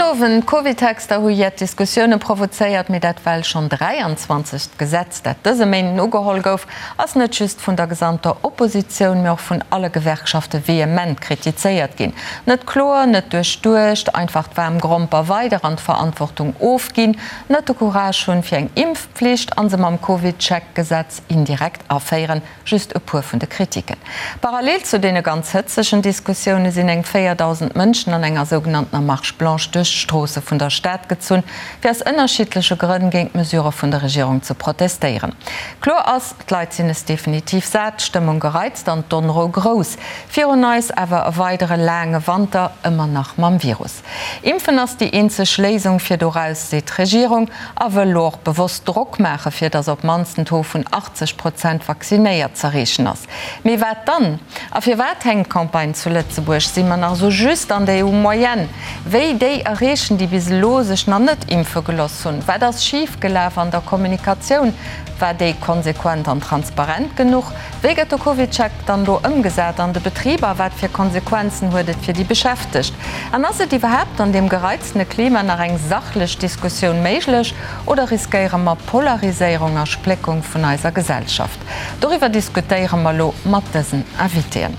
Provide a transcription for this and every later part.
Owend. D'Covidtexter hu jett Diskussioune provozéiert, mee dat well schonn 23. Gesetz, dat dëse Méinden ugeholl gouf, ass net just vun der gesamter Oppositioun, mee och vun alle Gewerkschafte vehement kritizéiert ginn. Net kloer, net duerchduecht, einfach d'waarm Gromper weider an d'Verantwortung ofginn, net de Courage hunn, fir eng Impfpflicht an se mam Covid-Check-Gesetz indirekt aféieren, Just e puer vun de Kritiken. Parallel zu deene ganz hëtzegen Diskussioune sinn eng 4.000 Mënschen an enger sougenanntener Marche blanche duerch d'Stroosse vun der Stad gezunn, fir aus ënnerschiddleche Grënn géint d'Mesurë vun der Regierung ze protestéieren. Kloer ass, d'Leit sinn es definitiv sat, d'Stëmmung gereizt an d'Onrou grouss. Virun eis awer e weidere laange Wanter, ëmmer nach mam Virus. Impfen ass déi eenzeg Léisung fir doraus, seet d'Regierung a wëll lo och bewosst Drock maache fir datt op d'mannst en Taux vun 80 Prozent vaccinéiert z'erreechen ass. Mee wat dann? A firwat hänkt d'Campagne zu Lëtzebuerg? Si mer nach esou just an der EU-Moyenne? Wéi déi erreechen, déi bis elo sech nach net impfe geloss hunn? Wat ass schif gelaf an der Kommunikatioun? War déi konsequent an transparent genuch? Wéi gëtt de CovidCheck dann elo ëmgesat an de Betriber? Wat fir Konsequenzen huet et fir déi Beschäftegt? An ass et iwwerhaapt an deem gereiztene Klima nach eng sachlech Diskussioun méiglech oder riskéiere mer Polariséierung a Spléckung vun eiser Gesellschaft? Doriwwer diskutéiere mer elo mat dësen Invitéen,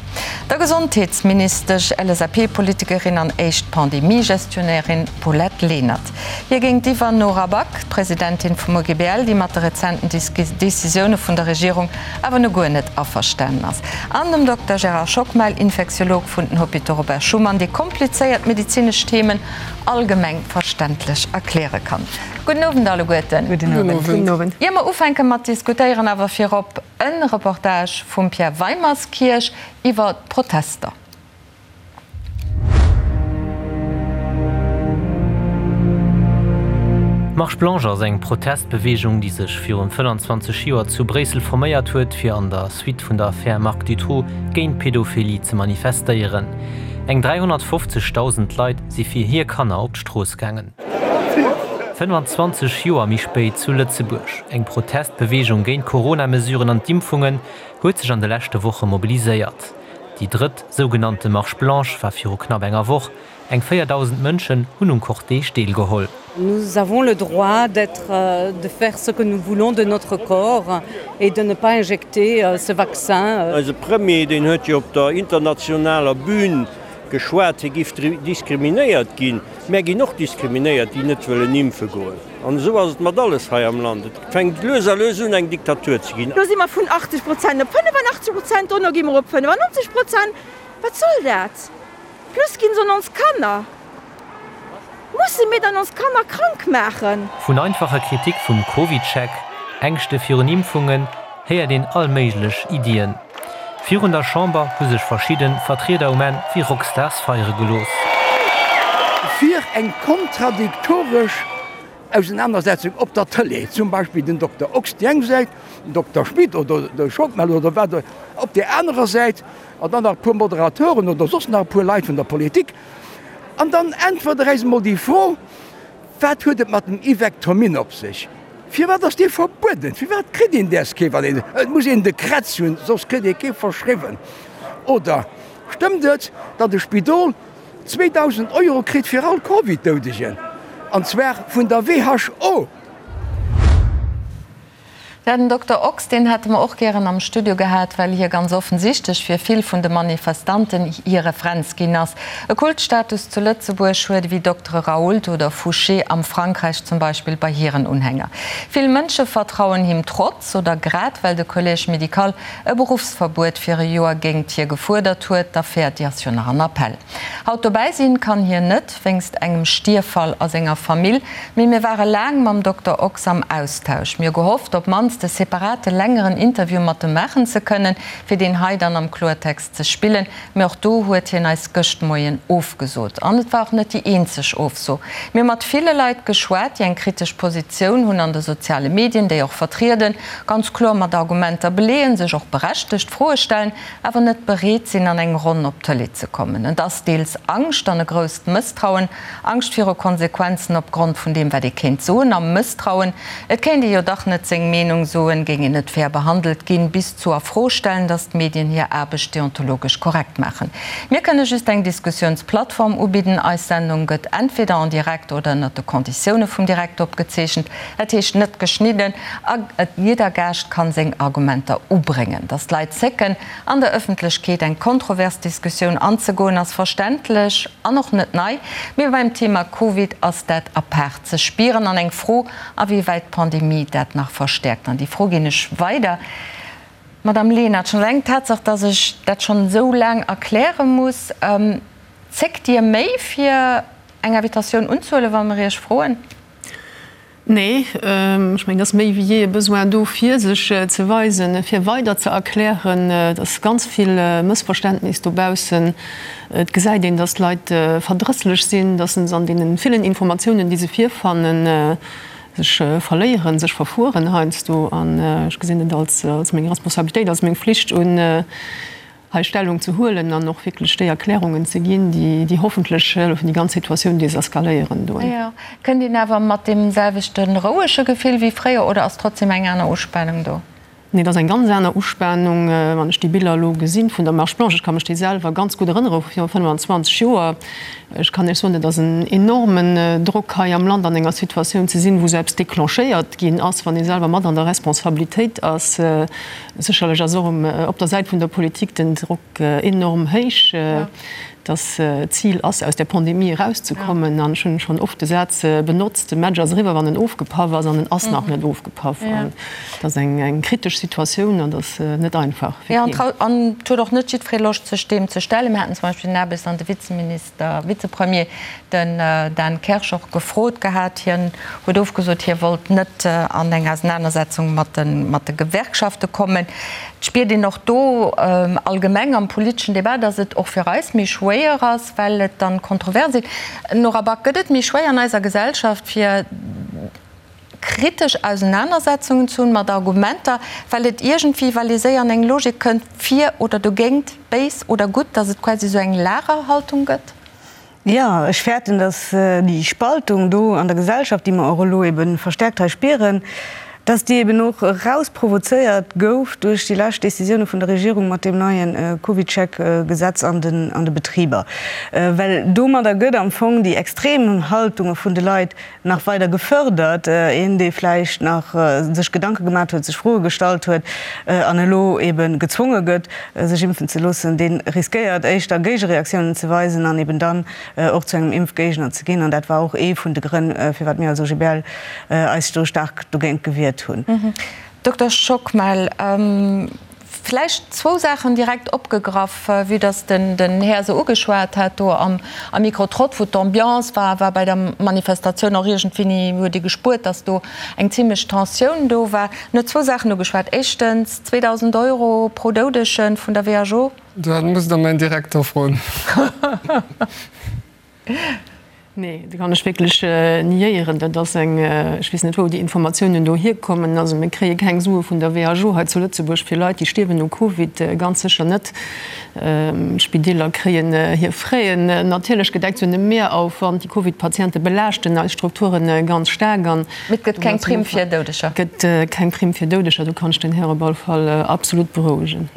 der Gesondheetsministesch, LSAP-Politikerin an éischt Pandemie-Gestionnairin Paulette Lenert. Hir géintiwwer Nora Back, d'Presidentin vum OGBL, déi mat de rezenten Decisioune vun der Regierung awer no guer net averstanen ass, an dem Dokter Gérard Schockmel, Infektiolog vun den Hôpitaux Robert Schuman, dee komplizéiert medezinesch Themen allgemeng verständlech erkläre kann. Gudden Owend alleguerten. Gudden Owend. Ier mer ufänke mat diskutéieren, awer virop e Reportage vum Pierre Weimerskirch iwwer d'Protester. D'Marche Blanche ass eng Protestbeweegung, déi sech virun 25 Joer zu Bréissel forméiert huet, fir an der Suite vun der Affär Marc Dutroux géint Pedophilie ze manifestéieren. Eng 350.000 Leit si fir hir Kanner op d'Strooss gaangen. 25 Joer méi spéit zu Lëtzebuerg, Eng Protestbeweegung géint d'Corona-Mesuren an d'Impfungen huet sech an de leschte Woche mobiliséiert. Déi drëtt sougenannte Marche blanche war viru knapp enger Woch. Eng 4.000 Mënschen hunn um Cortège deelgeholl. Nous avons le droit d'être, de faire ce que nous voulons de notre corps et de ne pas injecter ce vaccin. Eise Premier, deen huet jo op der internationaler Bühn geschwat, hie giff diskriminéiert ginn. Mär ginn och diskriminéiert, déi net wëllen impfe goen. An esou ass et mat alles hei am Land. Et fänkt lues a lues un, eng Diktatur ze ginn. Lo si mer vun 80 Prozent op 85 Prozent, dono gi mer op 95 Prozent. Wat soll dat? Plus ginn se un ons Kanner. Musse mir dann ons Kanner krank maachen? Vun einfacher Kritik vum CovidCheck, Ängschte virun Impfungen, héiert een all méiglech Iddien. Virun der Chamber hu sech verschidde Vertrieder um Enn wéi Rockstars feiere gelooss. Fir eng kontradiktoresch Ausenanersetzung op der Tëlee, zum Beispill den Dokter Ochs déi eng Säit, den Dokter Schmit oder de Schockmel oder wat op där anerer Säit, an dann nach e puer Moderateuren oder soss nach e puer Leit vun der Politik. An dann äntwert Der äis emol déi Fro, Wat huet et mat dem Ivectomin op sech? Firwat ass dee verbueden? Firwat kritt een däers kee wann een, et muss een de Krätz hunn, soss kritt ee kee verschriwwen? Oder stëmmt et, datt e Spidol 2.000 Euro kritt fir all Covid-Doudegen, an zwar vun der WHO? Ja, den Dokter Ochs, deen hätte mer och gären am Studio gehat, well hie ganz offensichtlech fir vill vun de Manifestanten hir Referenz ginn ass. E Kultstatus zu Lëtzebuerg huet ewéi Doktere Raoult oder Fouché am Frankräich zum Beispill bei hiren Unhänger. Vill Mënsche vertrauen him trotz oder grad well de Collège médical e Beruffsverbuet fir e Joer géingt hie gefuerdert huet. D'Affär, déi ass jo nach an Appell. Haut dobäi sinn kann hien net, wéinst engem Stierffall a senger Famill. Mee mir ware laang mam Dokter Ochs am Austausch. Mir hu gehofft, op mannst e separate längeren Interview mat em maachen ze kënnen, fir deen hei dann am Kloertext ze spillen. Mee och do huet hien eis gëscht Moien ofgesot. An et war och net déi eenzeg Ofso. Mir hu mat ville Leit geschwat, déi eng kritesch Positioun hunn an de soziale Medien, déi och vertrieden, ganz kloer mat Argumenter beleeën, sech och berechtegt Froe stellen, awer net bereet sinn, an eng Ronn op d'Tëlee ze kommen. Et ass deels Angscht an e grousst Mësstrauen, Angscht viru Konsequenzen opgrond vun deem, wat ee kéint soen, a Mësstrauen, et kéint ee jo dach net seng Meenung. Meenung soen, géing een net fair behandelt ginn, bis zu a Fro stellen, datt d'Medien hir Aarbecht deontologesch korrekt maachen. Mir kënne just eng Diskussiounsplattform ubidden. Eis Sendung gëtt entweder en direct oder ënnert de Konditioune vum Direct opgezeechent, dat heescht net geschnidden, a jidder Gaascht kann seng Argumenter ubréngen. Datt d'Leit zécken, an der Ëffentlechkeet eng kontrovers Diskussioun anzegoen, ass verständlech an och net nei, mee beim Thema Covid ass dat apaart ze spieren an eng Fro, a wéi wäit d'Pandemie dat nach verstäerkt. An déi Fro ginn ech weider. Madame Lenert, schonn eleng d'Tatsaach, dass ech dat schonn esou laang erkläre muss, zéckt Dir méi fir eng Invitatioun unzehuelen, wa mer Iech froen? Nee, ech mengen, et ass méi wéi jee e Besoin do, fir sech ze weisen, fir weider ze erklären. Et ass ganz vill Mëssverständnis dobaussen. Et gesäit een, dass d'Leit verdrësslech sinn, dass se an deene villen Informatiounen, déi se virfannen, sech verléieren, sech verfueren heiansdo. An ech gesinn et als meng Responsabilitéit, als meng Flicht un, hei Stellung ze huelen an och wierklech déi Erklärungen ze ginn, déi hoffentlech hëllefen, déi ganz Situatioun deseskaléieren do. Jo. Kënnt een awer mat deem selwechte rouege Gefill wéi fréier oder ass trotzdem eng aner Uspanung do? Nee, et ass eng ganz aner Uspanung, wann ech déi Biller elo gesinn vun der Marche Blanche. Ech ka mech déi selwer ganz gutt erënnere vu viru 25 Joer. Ech kann Iech soen, et ass en enormen Drock hei am Land an enger Situatioun ze sinn, wou sou eppes déclenchéiert ginn ass, wann ee selwer mat an der Responsabilitéit ass. Sécherlech ass och op der Säit vun der Politik den Drock enorm héich, dass d'Zil ass, aus där Pandemie erauszekommen. An ech hunn schonn oft de Saz benotzt, De Match ass eriwwer, wann en ofgepaff ass. An en ass nach net ofgepaff. An et ass eng kritesch Situatioun an et ass net einfach fir keen. An et huet och net jiddweree Loscht, sech deem ze stellen. Mir haten zum Beispill den Aarbechts an de Vizeminister, Vizepremier, den Dan Kersch och gefrot gehat. Hien huet ofgesot, hie wollt net an eng Ausenanersetzung mat de Gewerkschafte kommen. Et spiert een och do allgemeng am politeschen Debat, datt et och fir eis méi schwéier ass, well et dann kontrovers sinn. Nora Back, gëtt et méi schwéier an eiser Gesellschaft fir kritesch Ausenanersetzungen ze hunn mat Argumenter, well et iergendwéi, well ee séier an eng Logik kënnt, fir oder dogéint, béis oder gutt, datt et quasi esou eng Lagerhaltung gëtt? Jo, ech fäerten, datt déi Spaltung do an der Gesellschaft, déi mer och elo ebe verstärkt hei spieren, datt déi eben och erausprovozéiert gouf duerch déi lescht Décisioune vun der Regierung mat deem neie CovidCheck-Gesetz an de Betriber. Well domadder gëtt am Fong déi extrem Haltunge vun de Leit nach weider gefördert, een dee vläicht nach sech Gedanke gemat huet, sech Froe gestallt huet an elo ebe gezwonge gëtt, sech impfen ze loossen, dee riskéiert éischter Géigereaktiounen ze weisen an eben dann och zu engem Impfgéigner ze ginn. An dat war och ee vun de Grënn, firwat mir als OGBL eis do staark dogéint gewiert hunn. Dokter Schockmel, Vläicht zwou Saachen direkt opgegraff, vue dass den Här se ugeschwat hat do am Micro-trott, wou d'Ambiance war, war bei der Manifestatioun och iergendwéini, huet ee gespuert, dass do eng zimlech Tensioun do war. En huet zwou Saachen ugeschwat, éischtens 2.000 Euro pro Doudege vun der WHO. Dat musst Der mäin Direkter froen. Nee, dat kann ech wierklech niéieren. Dat ass eng, ech weess net wou déi Informatiounen do hierkommen. Also mir kréie keng Sue vun der WHO hei zu Lëtzebuerg fir Leit, déi stierwen u Covid, ganz sécher net. D'Spideeler kréien hir Fräen natierlech gedeckt. Se hunn e Mehraufwand. Déi Covid-Patiente belaaschten eis Strukture ganz staark. An Mee et gëtt keng Primm fir Doudeger? Et gëtt keng Primm fir Doudeger, do kann ech den Här op alle Fall absolut berouegen.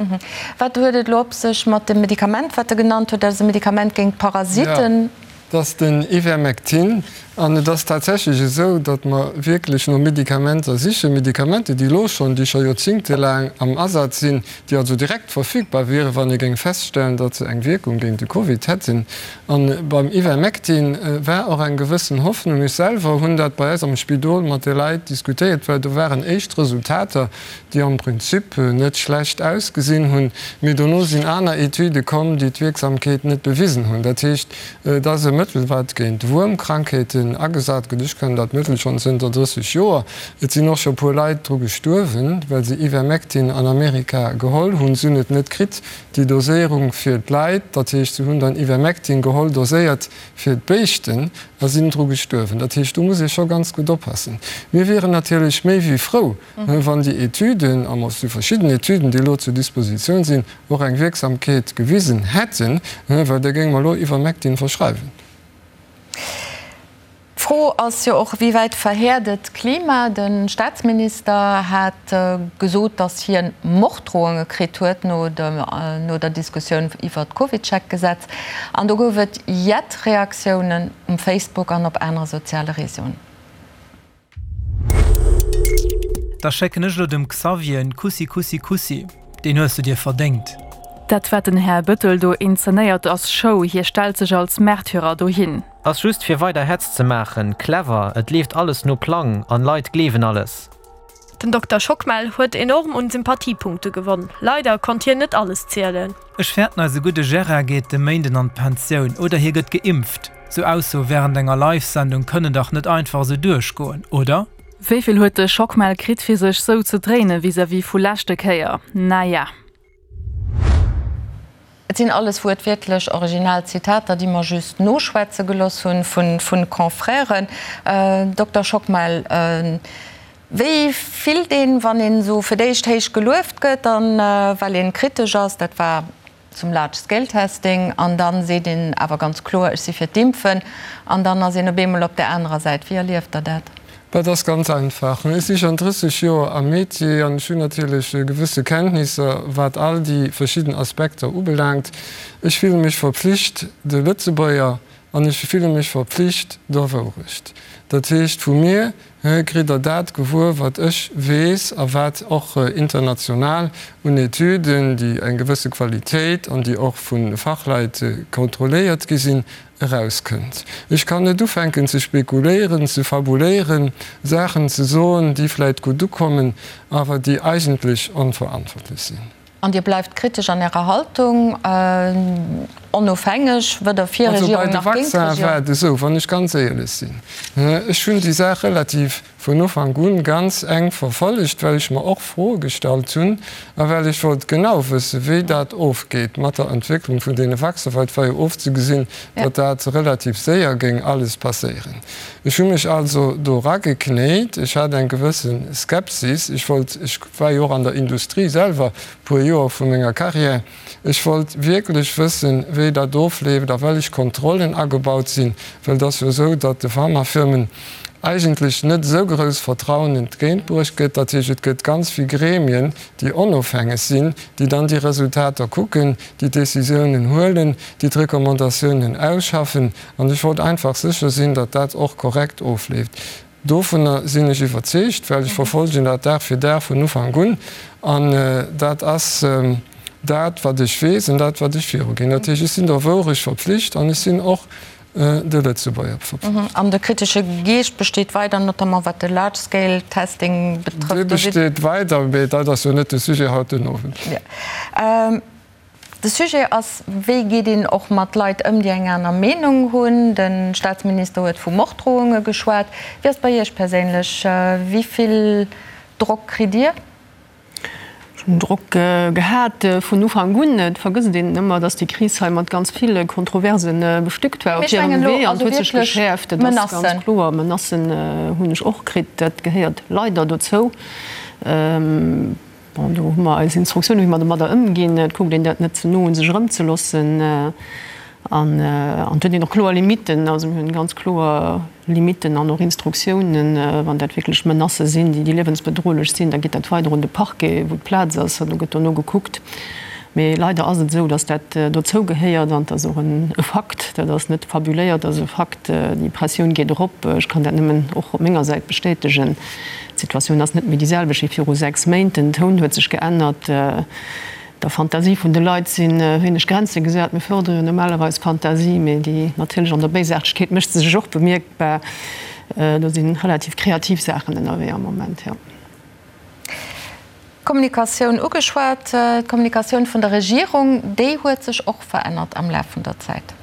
Wat huet et elo op sech mat dem Medikament, wat e genannt huet? Dat ass e Medikament géint Parasiten. Jo, dat ass den Ivermectin. An et ass tatsächlech esou, datt mer wierklech no Medikamenter sichen, Medikamenter, déi elo schonn, déi scho joerzingtelaang am Asaz sinn, déi also direkt verfügbar wieren, wann ee géing feststellen, datt se eng Wierkung géint de Covid hätten. A beim Ivermectin war och eng gewëssen Hoffnung. Ech selwer hunn dat bei eis am Spidol mat de Leit diskutéiert, well do waren éischt Resultater, déi am Prinzip net schlecht ausgesinn hunn, mee dono sinn aner Etüde komm, déi d'Wierksamkeet net bewisen hunn. Dat heescht, et ass e Mëttel, wat géint Wuermkrankheeten agesat gëtt. Ech kennen dat Mëttel schonn zënter 30 Joer. Et sinn och scho puer Leit dru gestuerwen, well se Ivermectin an Amerika geholl hunn. Se hunn et net kritt, déi Doséierung fir d'Leit. Dat heescht, se hunn dann Ivermectin geholl, doséiert fir d'Béischten, a sinn dru gestuerwen. Dat heescht, do muss ee scho ganz gutt oppassen. Mir wieren natierlech méi wéi frou, Wann déi Etüden, an et si verschidden Etüden, déi elo zur Dispositioun sinn, och eng Wierksamkeet gewisen hätten, well da géinge mer elo Ivermectin verschreiwen. D'Fro ass jo och, wéi wäit verhäert et d'Klima? De Staatsminister hat gesot, datt hien Morddrohunge kritt huet no der Diskussioun iwwert d'Covidcheck-Gesetz. An do gouf et jett Reaktiounen um Facebook an op anere soziale Reseauen. Da schécken ech lo dem Xavier en Kussi Kussi Kussi, deen hues du dir verdéngt. Dat wat den Här Bëttel do inzenéiert ass Show, hie stellt sech als Märtyrer dohin. Ass just fir weider Hetz ze maachen. Clever, et leeft alles no Plang an Leit gleewen alles. Den Dokter Schockmel huet enorm un Sympathiepunkte gewonn. Leider konnt hien net alles zielen. Ech fäerten eise gudde Gérard geet de Méinden an d'Pensioun oder hie gëtt geimpft. Sou Aussoe während enger Live-Sendung kënnen dach net einfach esou duerchgoen, oder? Wéivill huet de Schockmel kritt fir sech sou ze dréinen vis-à-vis vu leschte Kéier? Naja. Et sinn alles wuertwiertlech original Zitater, déi mer just noschwätze geloss hunn vu Confrèren. Dokter Schockmel, wéi fillt een, wann een esou fir d'éischt héich gelueft gëtt, dann well een kritesch ass, dat war zum Large Scale Testing, an dann seet een awer ganz kloer, ech si fir d'Impfen, an dann ass een op eemol op där anerer Säit. Wéi erlieft Der dat? Dat ass ganz einfach. Ech si schonn 30 Joer am Métier an ech hunn natierlech gewësse Kenntnisser, wat all déi verschidden Aspekter ubelaangt. Ech fille mech verpflicht de Lëtzebuerger an ech fille mech verpflicht der Wourecht. Dat heescht, vu mir kritt Der dat gewuer, wat ech weess a wat och international un Etüden, déi eng gewësse Qualitéit an déi och vu Fachleit kontrolléiert gi sinn, erauskënnt. Ech kann net ufänken ze spekuléieren, ze fabuléieren, Saachen ze soen, déi vläit gutt ukommen, awer déi eigentlech onverantwortlech sinn. An Dir bleift kritesch an Ärer Haltung, onofhängeg, weder fir Also bei Regierung de nach géint Vaccin d'Regierung? war et esou, wann ech ganz éierlech sinn, ech hunn déi Saach relativ vun Ufank un ganz enk verfollegt, well ech mer och Froe gestallt hunn a well ech wollt genau wëssen, wéi dat ofgeet mat der Entwécklung vun deene Vaccinen, well et war jo ofzegesinn, datt dat relativ séier géing alles passéieren. Ech hu mech also do erageknéit. Ech hat eng gewësse Skepsis. Ech wollt, ech war jo och an der Industrie selwer puer Joer vu menger Carrière, Ech wollt wierklech wëssen, wéi dat ofleeft a wellech Kontrollen agebaut sinn, well et ass jo esou, datt de Pharmafirmen eigentlech net esou grouss Vertrauen entgéintbruecht gëtt. Dat heescht, et gëtt ganz vill Gremien, déi onofhängeg sinn, déi dann déi Resultater kucken, déi d'Décisiounen huelen, déi d'Recommandatiounen ausschaffen. An ech wollt einfach sécher sinn, datt dat och korrekt ofleeft. Dovunner sinn ech iwwerzeegt, well ech verfolgen dat Dag fir Dag vun Ufank un. An dat ass dat, wat ech weess an dat, wat ech viruginn. Dat heescht, ech sinn der Wourecht verpflicht an ech sinn och de Lëtzebuerger verpflicht. An de kritesche Geescht besteet weider, notamment wat de Large Scale Testing betrëfft. Dee besteet weider, mee dat ass jo net de Sujet haut den Owend. De Sujet ass, wéi geet een och mat Leit ëm, déi eng aner Meenung hunn. De Staatsminister huet vu Morddrohunge geschwat. Wéi ass et bei Iech perséinlech? Wéi vill Drock kritt Dir? Ech hunn Drock gehat vun Ufank un. Et vergësst een ëmmer, datt déi Kris hei mat ganz ville Kontroverse bestückt war op hirem Wee an et huet sech geschäerft. Dat ass ganz kloer. Menacen hunn ech och kritt. Dat gehéiert leider dozou. Bon, do hu mer eis Instruktiounen, wéi mer domadder ëmginn. Et kuckt een dat net ze no un sech erëmzeloossen. An et huet een och kloer Limitten. Also mir hunn ganz kloer Limitten an och Instruktiounen. Wann dat wierklech Menacë sinn, déi liewensbedrohlech sinn, da geet dat weider un de Parquet, wou d'Plaz ass, an do gëtt dono gekuckt. Mee leider ass et esou, datt dat dozou gehéiert an et ass och e Fakt, dat ass net fabuléiert, dat ass e Fakt, déi Pressioun geet erop. Ech kann dat nëmmen och op menger Säit bestätegen. D'Situatioun ass net méi déi selwecht wéi viru 6 Méint. Den Toun huet sech geännert. Der Fantasie vun de Leit si wéineg Grenze gesat. Mir fërdere jo normalerweis Fantasie, mee déi natierlech an der Béisaartegkeet mécht se sech och bemierkbar. Do si relativ kreativ Saachen ënnerwee am Moment, jo. D'Kommunikatioun ugeschwat. D'Kommunikatioun vun der Regierung, déi huet sech och verännert am Laf vun der Zäit.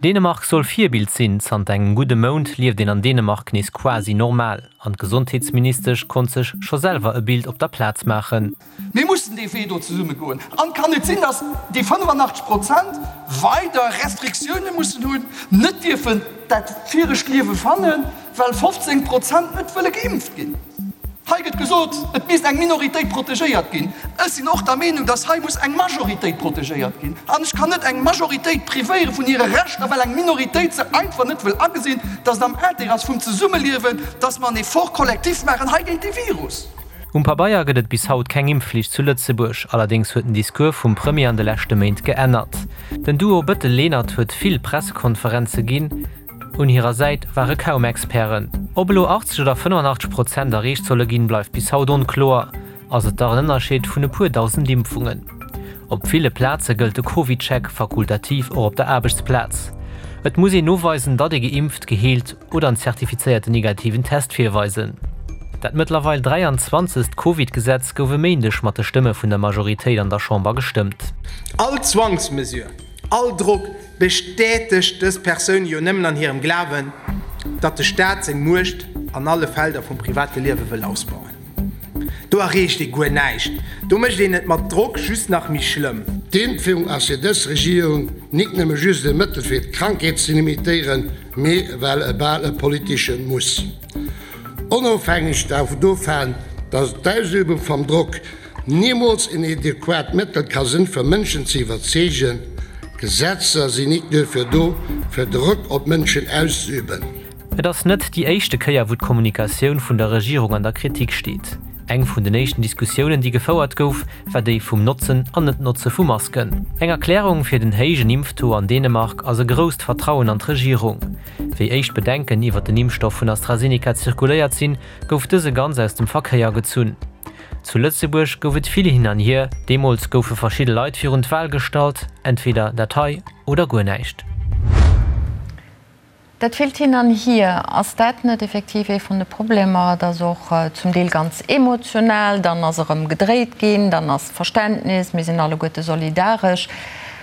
Dänemark soll Virbild sinn. Zanter engem gudde Mount lieft een an Dänemark nees quasi normal. An d'Gesondheetsministesch konnt sech scho selwer e Bild op der Plaz maachen. Mir mussen dee Wee do zesumme goen. An et kann net sinn, datt déi 85 Prozent weider Restriktioune mussen hunn, net dierfen dat viregt Liewe fannen, well 15 Prozent net wëlle geimpft ginn. Hei gëtt gesot, et misst eng Minoritéit protegéiert ginn. Ech sinn och der Meenung, dass hei muss eng Majoritéit protegéiert ginn. An ech kann net eng Majoritéit privéiere vun hire Rechter, well eng Minoritéit se einfach net wëll agesinn, dass et am Intérêt ass vum Zesummeliewen, dass mer en Effort collectif maachen hei géint dee Virus. Um Pabeier gëtt et bis haut keng Impfflicht zu Lëtzebuerg. Allerdéngs huet den Discours vum Premier an de leschte Méint geännert. Den Duo Bëttel-Lenert huet vill Pressekonferenze ginn. Un hirer Säit ware kaum Experten. Ob elo 80 oder 85 Prozent erreecht solle ginn, bleift bis haut onkloer. Ass et dach en Ënnerscheed vun e puer 1.000 Impfungen. Op ville Plaze gëllt de CovidCheck fakultativ och op der Aarbechtsplaz. Et muss een noweisen, datt ee geimpft, geheelt oder en zertifizéierten negativen Test virweisen. Dat mëttlerweil 23. Covid-Gesetz gouf e Méindeg mat de Stëmme vun der Majoritéit an der Chamber gestëmmt. All Zwangsmesure, all Drock bestätegt dës Persoune jo nëmmen an hirem Glawen, datt de Staat seng Muecht an alle Felder vum private Liewe wëll ausbauen. Do erreecht ee guer näischt, do mécht een et mat Drock just nach méi schlëmm. D'Impfung ass fir dës Regierung nik nëmme just e Mëttel fir d'Krankheet ze limitéieren, mee well e bal e politesche Muss. Onofhängeg dovaan, datt d'Ausübung vam Drock Nimools en adequat Mëttel ka sënn fir Mënschen ze iwwerzeegen. Gesetzer sinn nik duerfir do, fir Drock op Mënschen auszeüben. Et ass net déi éischte Kéier, wou d'Kommunikatioun vun der Regierung an der Kritik steet. Eng vun den éischten Diskussiounen, déi gefouert gouf, war déi vum Notzen an Net-Notze vu Masken. Eng Erklärung fir den héijen Impftaux an Dänemark ass e grousst Vertrauen an d'Regierung. Wéi éischt Bedenken iwwer den Impfstoff vun AstraZeneca zirkuléiert sinn, gouf dëse ganz aus dem Verkéier gezunn. Zu Lëtzebuerg gouf et vill hin an hier. Deemools goufe verschidde Leit virun d'Wal gestallt, entweder dat hei oder guer näischt. Dat villt Hin an Hier, ass dat net effektiv ee vun de Problemer? Et ass och zum Deel ganz emotional, dann ass erëm gedréit ginn, dann ass Verständnis, mir sinn alleguerte solidaresch.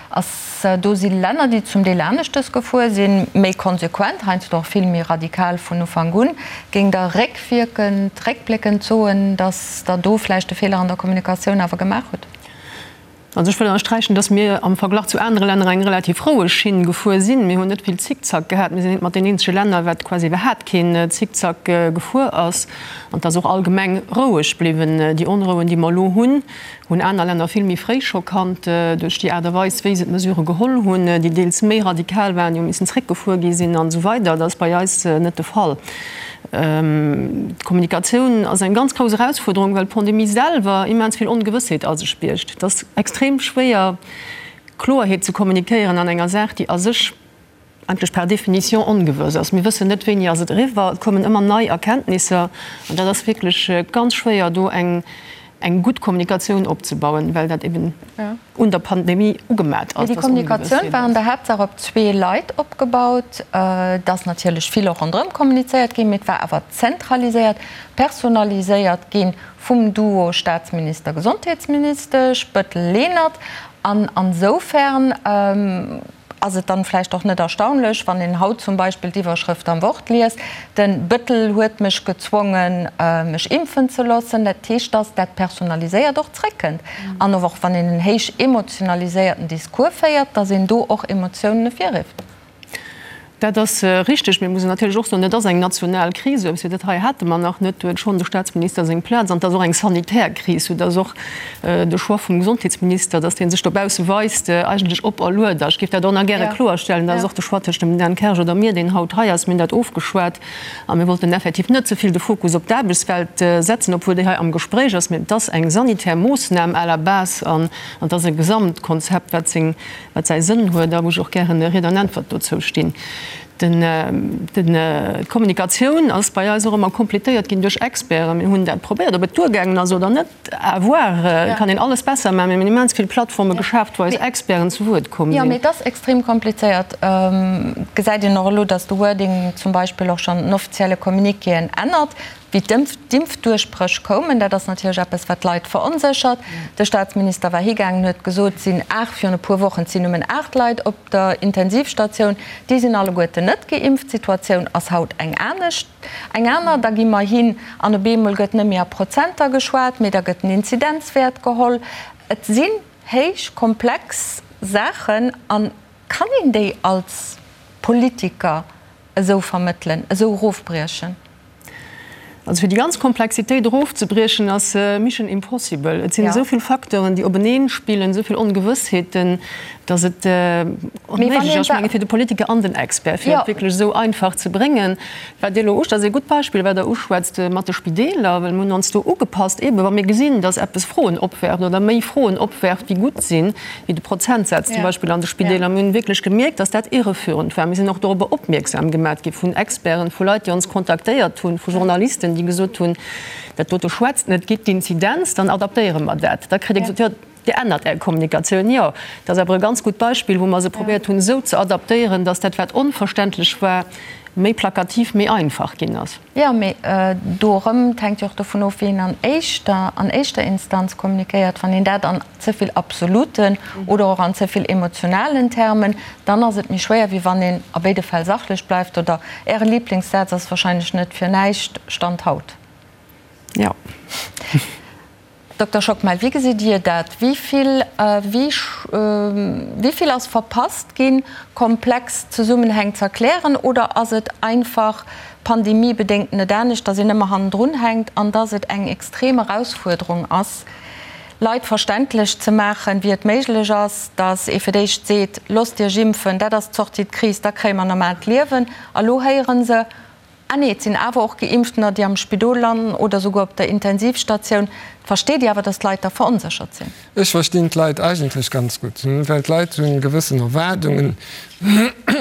Ass, do si Länner, déi zum Deel aneschtes gefuer sinn, méi konsequent, heiansdo och vill méi radikal vun Ufank un. Géing Der réckwierkend, réckbléckend soen, datt Der do vläicht e Feeler an der Kommunikatioun awer gemaach hutt? Also ech wëll ënnersträichen, datt mir am Verglach zu anere Länner eng relativ roueg Schinn gefuer sinn. Mir hunn net vill Zickzack gehat. Mir sinn eent mat den eenzege Länner, wat quasi iwwerhaat keen Zickzack gefuer ass. An et ass och allgemeng roueg bliwwen. Déi Onrouen, déi mer elo hunn, hunn aner Länner vill méi fréi scho kannt, duerch déi Aart a Weis, wéi se d'Mesurë geholl hunn, déi deels méi radikal waren, déi hu missen zréckgefuer gi sinn an esou weider. Dat ass bei eis net de Fall. D'Kommunikatioun ass eng ganz grouss Erausfuerderung, well d'Pandemie selwer immens vill Ongewëssheet a sech biergt. Et ass extrem schwéier, Kloerheet ze kommunikéieren an enger Saach, déi a sech eigentlech par définition ongewëss ass. Mir wëssen net, wéini ass et eriwwer. Et kommen ëmmer nei Erkenntnisser an dat ass wierklech ganz schwéier, do eng eng gutt Kommunikatioun opzebauen, well dat eben un der Pandemie ugemat ass. Déi Kommunikatioun war an der Haaptsaach op zwee Leit opgebaut. Et ass natierlech vill och ronderëm kommunizéiert ginn, mee et war awer zentraliséiert, personaliséiert gi vum Duo Staatsminister-Gesondheetsministesch Bettel-Lenert. An ansoufern Ass et dann vläicht och net erstaunlech, wann een haut zum Beispill d'Iwwerschrëft am Wort liest, Den Bëttel huet mech gezwongen, mech impfen ze loossen. Dat heescht, dass dat Personaliséiert och zréckkënnt. An och wann een en héich emotionaliséierten Discours féiert, dass een do och Emotiounen ervirrifft. Dat ass richteg. Mee et muss een natierlech och soen, et ass eng national Kris. Esou eppes wéi dat hei hate mer nach net. Do huet schonn de Staatsminister seng Plaz. An et ass och eng sanitär Kris, soudass och de Choix vum Gesondheetsminister, dass dee sech dobausse weist, eigentlech operluet ass. Ech géif dat och nach gäre kloerstellen, Dat ass och de Choix tëscht dem Dan Kersch oder mir, deen haut hei ass. Mir hunn dat ofgeschwat a mir wollten effektiv net ze vill de Fokus op d'Aarbechtswelt setzen, obwuel déi hei am Gespréich ass. Mee et ass eng sanitär Moossnam à la base an et ass e Gesamtkonzept, wat seng wat säi Sënn huet a wou ech och gären Ried an Äntwert dozou stinn. D'Kommunikatioun ass bei eis och ëmmer completéiert ginn duerch Experten. Mir hunn dat probéiert, ob et duergaangen ass oder net, à voir. Et kann een alles besser maachen. Mir hunn immens vill Plattforme geschaaft, wou eis Experten zu Wuert komm sinn. Jo, mee et ass extrem komplizéiert. Et gesäit een och elo, datt de Wording zum Beispill och schonn den offizielle Communiquéen ännert. Wéi d'Impfduerchbréch koumen, dat ass natierlech eppes, wat d'Leit veronséchert. De Staatsminister war higaangen, huet gesot, et sinn 8, virun e puer Wochen, et sinn nëmmen 8 Leit op der Intensivstatioun, déi sinn alleguerten net geimpft. D'Situatioun ass haut eng anescht, eng aner. Da gi mer hin an op eemol gëtt net méi a Prozenter geschwat, mee da gëtt den Inzidenzwäert geholl. Et sinn héich komplex Saachen a kann een déi als Politiker esou vermëttelen, esou erofbriechen? Also fir déi ganz Komplexitéit erofzebriechen ass mission impossible. Et sinn esou vill Facteuren, déi openeen spillen, esou vill Ongewëssheeten, datt et onméiglech ass, ech menge fir de Politiker an den Expert, fir et wierklech esou einfach ze bréngen. Wat Dir elo usch, dat ass ee gutt Beispill, wat Der uschwätzt mat de Spideeler, well mir hunn ons do ugepasst, eebe wa mir gesinn, datt eppes Froen opwerft oder méi Froen opwerft wéi gutt sinn, wéi de Prozentsaz zum Beispill an de Spideeler. Mir hunn wierklech gemierkt, dass dat irreführend war. Mir sinn och dorobber opmierksam gemat gi vun Experten, vu Leit, déi ons kontaktéiert hunn, vu Journalisten, déi gesot hunn, Dat dote schwätzt net, gitt d'Inzidenz, dann adaptéiere mer dat. Da kritt ee gesot, Jo, Dir ännert Är Kommunikatioun. Jo, dat ass awer e ganz gutt Beispill, wou mer se probéiert hunn, esou ze adaptéieren, dass dat, wat onverständlech war, méi plakativ, méi einfach ginn ass. Jo, mee do erëm, et hänkt jo och dovun of, wéi een an éischter, an éischter Instanz kommunikéiert. Wann een dat an ze vill absoluten oder och an ze vill emotionalen Termen, dann ass et méi schwéier, wéi wann een a béide Fäll sachlech bleift. Oder Äre Lieblingssaz ass wahrscheinlech net fir näischt, Stand haut. Jo. Dokter Schockmel, wéi gesitt Dir dat? Wéi vill, wéi vill ass verpasst ginn, komplex Zesummenhäng ze erklären? Oder ass et einfach pandemiebedéngt net anescht, datt een ëmmer hannendrun hänkt an datt et eng extrem Erausfuerderung ass, Leit verständlech ze maachen, wéi et méiglech ass, datt ee fir d'éischt seet, Loosst Iech impfen, dat ass d'Sortie de crise, da kréie mer normaalt Liewen. A lo héiere se, Ah nee, et sinn awer och Geimpftener, déi am Spidol landen oder souguer op der Intensivstatioun. Versteet Dir awer, datt d'Leit da veronséchert sinn? Ech verstinn d'Leit eigentlech ganz gutt, well d'Leit hu gewëssen Erwaardungen.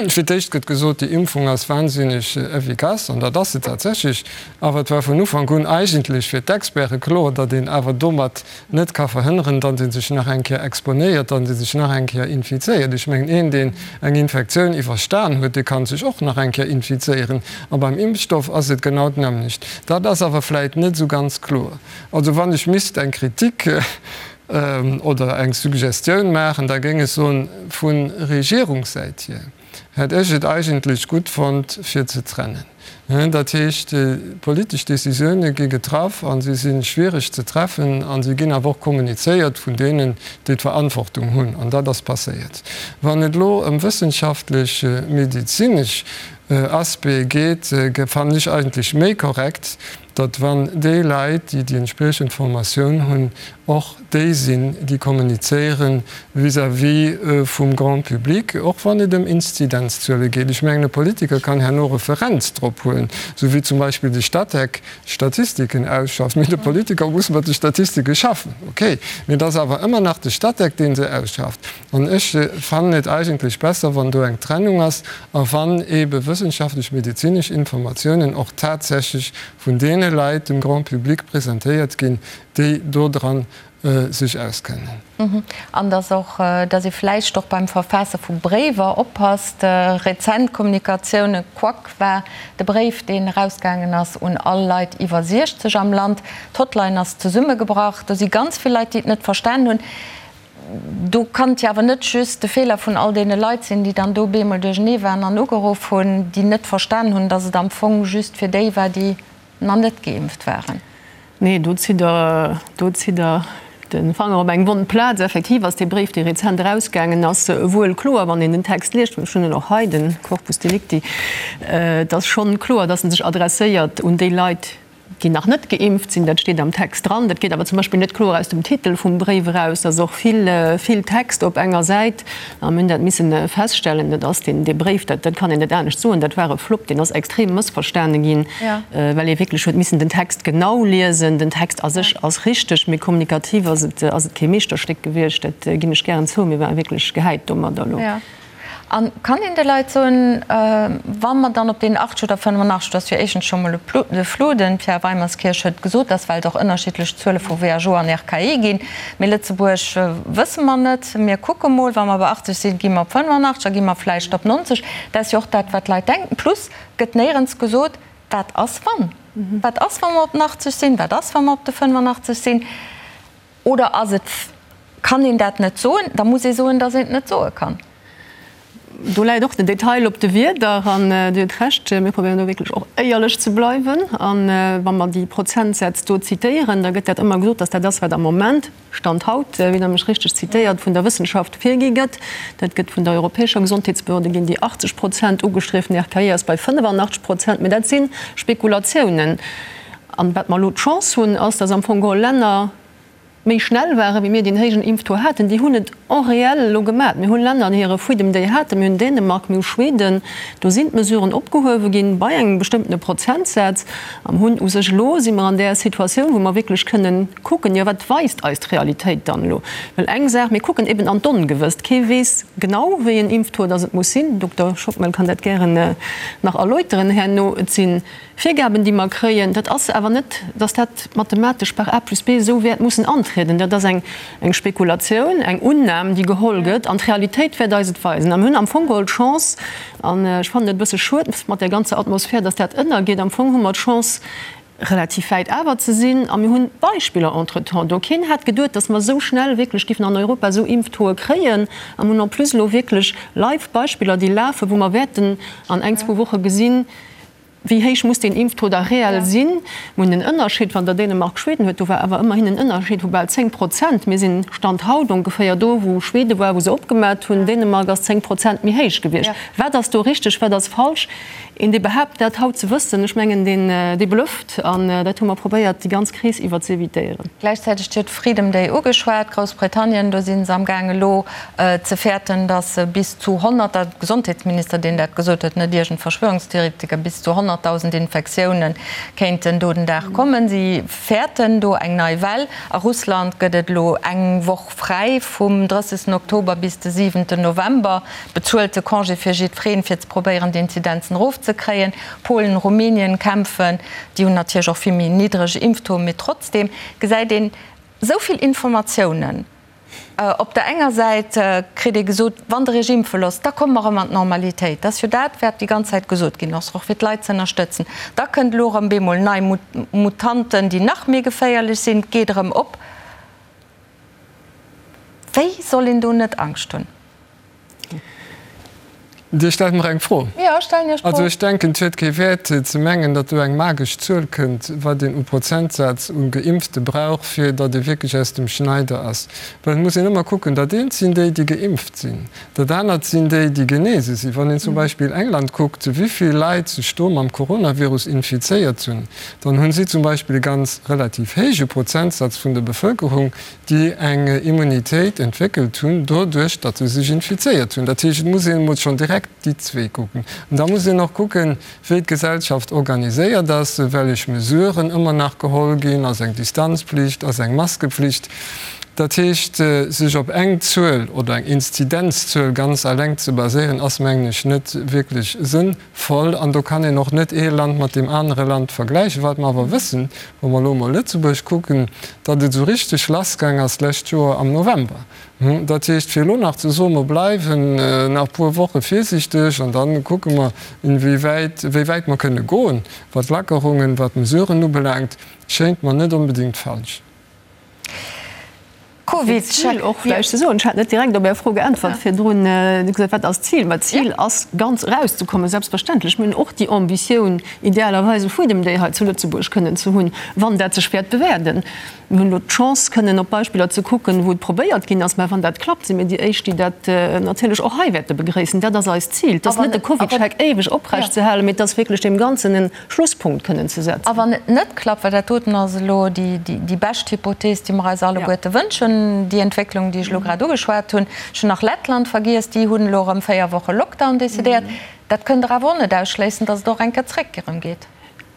Fir d'éischt gëtt gesot, déi Impfung ass wahnsinneg efficace, an dat ass se tatsächlech. Awer et war vun Ufank un eigentlech fir d'Experte kloer, datt een awer domat net ka verhënneren, datt ee sech nach eng Kéier exponéiert, datt ee sech nach eng Kéier infizéiert. Ech mengen, een, deen eng Infektioun iwwerstan huet, dee ka sech och nach eng Kéier infizéieren. A beim Impfstoff ass et genau d'nämmlecht. Dat ass awer vläit net esou ganz kloer. Also wann ech misst eng Kritik oder eng Suggestioun maachen, da géing ech soen, vu Regierungssäit hier hätt ech et eigentlech gutt fonnt, fir ze trennen. Dat heescht, politesch Décisioune gi getraff a si si schwiereg ze treffen a si ginn awer och kommunizéiert vun deenen, déi d'Verantwortung hunn. An dat ass passéiert. Wann et elo ëm wëssenschaftlech, medezinesch Aspecte geet, fannen ech eigentlech méi korrekt, datt wann déi Leit, déi déi entspriechend Formatioun hunn, och déi sinn, déi kommunizéiere vis-à-vis vum Grand public, och wann et ëm Inzidenzzuele geet. Ech mengen, e Politiker kann herno Referenz drop huelen, esou wéi zum Beispill de Statec Statistiken ausschafft. Mee de Politiker muss mat de Statistike schaffen, okay, mee et ass awer ëmmer nach de Statec, dee se ausschafft. An ech fannen et eigentlech besser, wann do eng Trennung ass a wann eebe wëssenschaftlech medezinesch Informatiounen och tatsächlech vun deene Leit dem Grand public presentéiert ginn, déi dodran sech auskennen. An dass och, dass ee vläicht och beim Verfaasse vu Bréiwer oppasst. Rezent Kommunikatioune, Quack war de Bréif, deen erausgaangen ass un all Leit iwwer 60 am Land. D'Hotline ass zesummegebrach. Do si ganz vill Leit, déi et net verstan hunn. Do kann et jo awer net just de Feeler vun all deene Leit sinn, déi dann do bemol duerchenee waren an ugeruff hunn, déi net verstan hunn, datt et am Fong just fir déi war, déi nach net geimpft waren. Nee, do zitt Der, do zitt Der de Fanger op eng wonn Plaz. Effektiv ass dee Bréif, dee rezent erausgaangen ass, wuel kloer, wann een den Text liest, ech hunn en och hei, de Corpus delicti, et ass schonn kloer, datt en sech adresséiert un déi Leit, déi nach net geimpft sinn, dat steet am Text dran. Dat geet awer zum Beispill net kloer aus dem Titel vum Bréif eraus. Dat ass och vill, vill Text op enger Säit. A mir hunn dat missen feststellen, dat ass deen, dee Bréif, dat, dat kann een net anescht soen, dat war e Flopp, deen ass extrem mëssverstane ginn, well ee wierklech huet missen den Text genau liesen. Den Text a sech ass richteg, mee kommunikativ ass et, ass et kee Meeschterstéck gewiescht, dat ginn ech gären zou. Mir ware wierklech gehäit domadder elo. A kann een de Leit soen, wa mer dann op deen 80 oder 85, dat ass jo éischtens scho mol e Flou, de Pierre Weimerskirch huet gesot, dass well et och ënnerschiddlech Zuele vu WHO an RKI ginn, mee Lëtzebuerg wësse mer net, mir kucke mol, wa mer bei 80 sinn, gi mer op 85, da gi mer vläicht op 90, dat ass jo och dat, wat d'Leit denken. Plus gëtt néierens gesot, wat ass wann? Wat ass, wa mer op den 80 sinn? Wat ass, wa mer op de 85 sinn? Oder ass et, kann een dat net soen? Da muss ee soen, datt een et net soe kann. Do läit och den Detail op de Wierder. An Dir hutt Recht, mir probéieren do wierklech och éierlech ze bleiwen. A wa mer déi Prozentsätz do zitéieren, da gëtt dat ëmmer gesot, datt dat ass, wat am Moment, Stand haut, wéi Der mech richteg zitéiert, vun der Wëssenschaft virgi gëtt. Dat gëtt vun der europäescher Gesondheetsbehörde ginn déi 80 Prozent ugestrieft, den RKI ass bei 85 Prozent. Mä dat si Spekulatiounen. An wat mer elo d'Chance hunn, ass, dass am Fong geholl Länner méi schnell waren, wéi mir, déi en héijen Impftaux haten. Déi hunn et en réel elo gemat. Mir hunn Länner, déi hire Freedom Day haten. Mir hunn Dänemark, mir hu Schweden. Do sinn d'Mesuren opgehuewe ginn bei engem bestëmmtene Prozentsaz. A mir hunn u sech elo, si mer an där Situatioun, wou mer wierklech kënnen kucken, jo wat weist eis d'Realitéit dann elo? Well eng Saach, mir kucken eben an d'Ongewësst. Kee weess genau, wéi en Impftaux dass et muss sinn. Dokter Schockmel kann dat gären nach erläuteren herno. Et si Virgaben, déi mer kréien, dat ass awer net, dass dat mathematesch par A plus B esou wäert mussen antrieden. Dat ass eng Spekulatioun, eng Unnam, déi geholl gëtt, an d'Realitéit wäert eis et weisen. A mir hunn am Fong geholl d'Chance, an ech fannen et e bësse schued mat där ganzer Atmosphär, dass dat ënnergeet, am Fong hu mer d'Chance, relativ wäit awer ze sinn, a mir hunn Beispiller entretemps do. Keen hat geduet, dass mer esou schnell wierklech giffen an Europa esou Impftauxe kréien, a mir hunn en plus elo wierklech live Beispiller, déi lafen, wou mer wäerten an eng, zwou Woche gesinn, Wéi héich muss deen Impftaux da reell sinn? Mir hunn en Ënnerscheed, wann Der Dänemark, Schweden huet, do war awer ëmmerhin en Ënnerscheed vu bal 10 Prozent. Mir sinn Stand haut ongeféier do, wou Schwede war, wou se opgemat hunn. Dänemark ass 10 Prozent méi héich gewiescht. Wat ass do richteg, wat ass falsch? Een, dee behaapt, dat haut ze wëssen, ech mengen, deen, dee blufft. An dat hu mer probéiert, déi ganz Kris iwwer ze evitéieren. Gläichzäiteg, Dir hutt Freedom Day ugeschwat, Groussbritannien, do si se amgaang elo ze fäerten, datt bis zu 100, de Gesondheetsminister, deen dat gesot huet, net iergend Verschwörungstheoretiker, bis zu 100.000 Infektioune kéinten do den Dag kommen. Si fäerten do eng nei Well. A Russland gëtt et elo eng Woch fräi vum 30. Oktober bis de 7. November, bezuelte Congé fir jiddwereen, fir ze probéieren, d'Inzidenzen erofzekréien. Polen, Rumänien kämpfen, déi hunn natierlech och vill méi niddreg Impftaux, mee trotzdeem gesäit een esou vill Informatiounen. Op der enger Säit kritt ee gesot, wann Der Iech impfe loosst, da komme mer erëm an d'Normalitéit. Dat ass jo dat, wat déi ganz Zäit gesot ginn ass, och fir d'Leit ze ënnerstëtzen. Da kënnt elo erëm bemol nei Mutanten, déi nach méi geféierlech sinn. Et geet erëm op. Wéi soll een do net Angscht hunn? Dir stellt mer eng Fro. Jo, ech stellen Iech d'Fro. Also ech denken, et huet kee Wäert ze mengen, datt do eng magesch Zuel kënnt, wat een u Prozentsaz u Geimpfte brauch, fir datt ee wierklech aus dem Schneider ass. Well et muss een ëmmer kucken, dat eent sinn déi, déi geimpft sinn, dat anert sinn déi, déi genese sinn. Wann een zum Beispill England kuckt, wéi vill Leit sech do mam Coronavirus infizéiert hunn, dann hu si zum Beispill e ganz relativ héije Prozentsaz vun der Bevëlkerung, déi eng Immunitéit entwéckelt hunn, doduerch datt se sech infizéiert hunn. Dat heescht, et muss een emol schonn direkt déi zwee kucken. An da muss een och kucken, wéi d'Gesellschaft organiséiert ass, wellech Mesuren ëmmer nach geholl ginn, ass eng Distanzpflicht, ass eng Maskepflicht. Dat heescht, sech op eng Zuel oder eng Inzidenzzuel ganz alleng ze baséieren, ass, mengen ech, net wierklech sënnvoll. Voll. An do kann een och net ee Land mat deem anere Land vergläichen. Wat mer awer wëssen, wa mer elo emol Lëtzebuerg kucken, datt et esou richteg lassgaang ass d'lescht Joer am November. Dat heescht, fir elo nach ze soen, mer bleiwen nach e puer Woche virsiichteg an da kucke mer, inwiewäit, wéi wäit mer kënne goen, wat d'Lackerungen, wat d'Mesuren ubelaangt, schéngt mer net onbedéngt falsch. D'Zil och vläicht ze soen, ech hat net direkt op Är Fro geäntwert virdrun, Dir hutt gesot, wat ass d'Zil? Ma d'Zil ass, ganz erauszekommen, selbstverständlech. Mir hunn och déi Ambitioun, idealerweis e Freedom Day hei zu Lëtzebuerg kënnen ze hunn, wann dat sech wäert bewäerten. Mir hunn elo d'Chance, kënnen op Beispiller ze kucken, wou et probéiert ginn ass. Mä wann dat klappt, si mir déi Éischt, déi dat natierlech och hei wäerte begréissen. Dat ass eist Zil. Et ass net, de CovidCheck éiweg oprechtzehalen, mee et ass wierklech deem Ganzen en Schlusspunkt kënnen ze setzen. A wann et net klappt, well dat doten ass elo déi bescht Hypothees, déi mer eis alleguerte wënschen, déi Entwécklung, déi ech elo grad ugeschwat hunn, ech hunn nach Lettland vergiess, déi hunn elo erëm 4 Woche Lockdown decidéiert, dat kënnt Der awer och net ausschléissen, datt et och eng Kéier zréck erëm geet.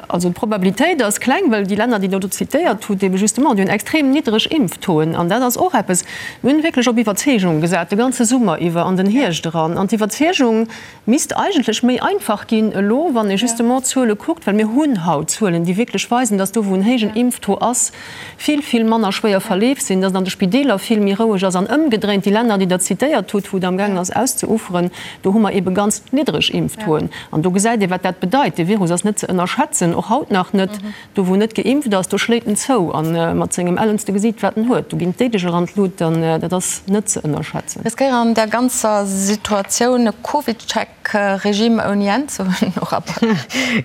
Also d'Probabilitéit ass kleng, well déi Länner, déi Der do zitéiert hutt, ebe justement, déi hunn extrem niddreg Impftauxen. An dat ass och eppes, mir hunn wierklech op Iwwerzeegung gesat, de ganze Summer iwwer, an den Hierscht eran. An d'Iwwerzeegung, Misst eigentlech méi einfach ginn elo, wann ee justement d'Zuele kuckt, well mir hunn haut Zuelen, déi wierklech weisen, dass do, wou en héijen Impftaux ass, vill, vill manner schwéier Verleef sinn, dass et an de Spideeler vill méi roueg ass an ëmgedréint, déi Länner, déi Der zitéiert hutt, wou et amgaangen ass auszeuferen, do hu mer eebe ganz niddreg Impftauxen. An do gesäit ee wat dat bedeit. Dee Virus ass net ze ënnerschätzen, och haut nach net. Do wou net geimpft ass, do schléit en zou a mat sengem ellenste Gesiit wat en huet. Do ginn d'Déideg eran d'Lut an dat ass net ze ënnerschätzen. Riskéieren an der ganzer Situatioun e Covid-Check-Regime ouni Enn ze hunn, Nora Back?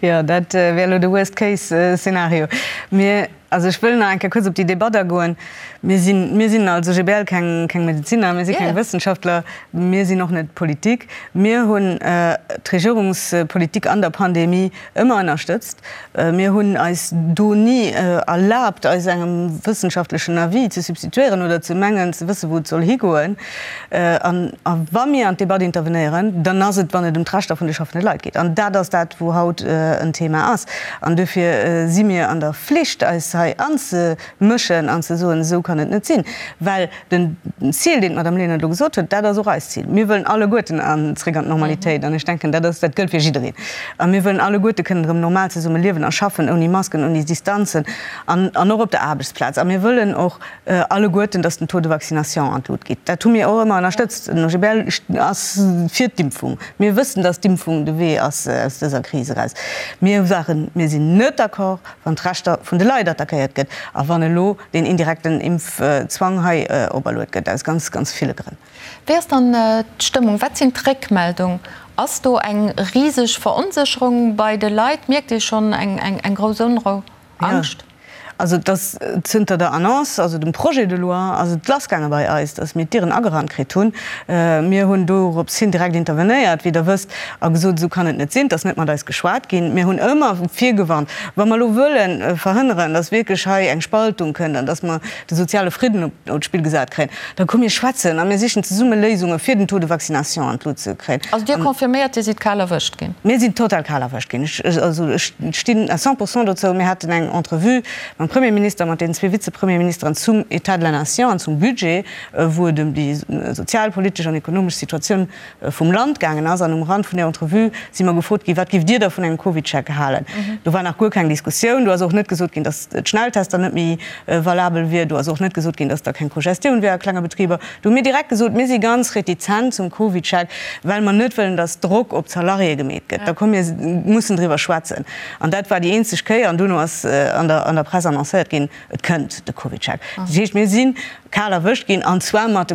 Jo, dat wär elo de Worst-Case-Szenario. Mir. Also ech wëll nach eng Kéier kuerz op déi Debatt agoen. Mir sinn, mir sinn als OGBL keng, keng Medeziner, mir si keng Wëssenschaftler, mir sinn och net d'Politik. Mir hunn d'Regierungspolitik an der Pandemie ëmmer ënnerstëtzt. Mir hunn eis do ni erlaabt, eis engem wëssenschaftlechen Avis ze substituieren oder ze mengen ze wëssen, wou et soll higoen. An wa mir an d'Debatt intervenéieren, dann ass et, wann et ëm d'Rechter vun de schaffende Leit geet. An dat ass dat, wou haut en Thema ass. An duerfir si mir an der Flicht, eis hei anzemëschen an ze soen, esou kann et net sinn. Well den Zil, deen d'Madame Lenert elo gesot huet, dat ass och eist Zil. Mir wëllen alleguerten zréck an d'Normalitéit. An ech denken, dat ass, dat gëllt fir jiddereen. A mir wëllen alleguerte kënnen erëm normal zesumme liewen a schaffen, ouni Masken, ouni Distanzen an och op der Aarbechtsplaz. A mir wëllen och alleguerten, dass den Taux de vaccination an d'Lut geet. Dat hu mir och ëmmer ënnerstëtzt. Den OGBL ass fir d'Impfung. Mir wëssen, dass d'Impfung de Wee ass aus dëser Kris eraus. Mir waren, mir sinn net d'accord, wann d'Rechter vun de Leit attackéiert gëtt a wann elo deen indirekten Impfzwang hei operluet gëtt, aus ganz, ganz ville Grënn. Wéi ass dann d'Stëmmung? Wat sinn d'Réckmeldung? Ass do eng riseg Veronsécherung bei de Leit? Mierkt Dir schonn eng grouss Onrou, Angscht? Also et ass zënter der Annonce, also dem Projet de loi, ass et lassgaange bei eis, datt mir d'Dieren agerannt kritt hunn. Mir hunn dorops hin direkt intervenéiert, wéi Der wësst, a gesot, esou kann et net sinn, et ass net mat eis geschwat ginn. Mir hunn ëmmer virgewarnt, wa mer elo wëlle verhënneren, datt wierklech hei eng Spaltung kënnt an datt mer de soziale Fridden op d'Spill gesat kréien, da komm mir schwätzen a mir sichen zesumme Léisunge fir den Taux de vaccination an d'Lut ze kréien. Also Dir confirméiert, Dir sidd kal erwëscht ginn? Mir sinn total kal erwëscht ginn. Ech, also ech stinn à 100 pourcent dozou. Mir haten eng Entrevue mam Premierminister, mat deenen zwee Vizepremierministeren zum État de la Nation an zum Budget, wou et ëm déi sozialpolitesch an ekonomesch Situatioun vum Land gaangen ass. An um Rand vun där Entrevue si mer gefrot ginn, Wat giff Dir da vun engem CovidCheck halen? Do war nach guer keng Diskussioun. Do ass och net gesot ginn, datt d'Schnelltester net méi valabel wier. Do ass och net gesot ginn, datt da keng Cogestioun wär a klenge Betriber. Do hu mir direkt gesot, mir si ganz retizent zum CovidCheck, well mer net wëllen, datt Drock op d'Salariéë gemeet gëtt. Da komm mir mussen driwwer schwätzen. An dat war déi eenzeg Kéier. An duerno ass an der Press annoncéiert ginn, et kënnt de CovidCheck. Dat heescht, mir si kal erwëscht ginn, an zwar mat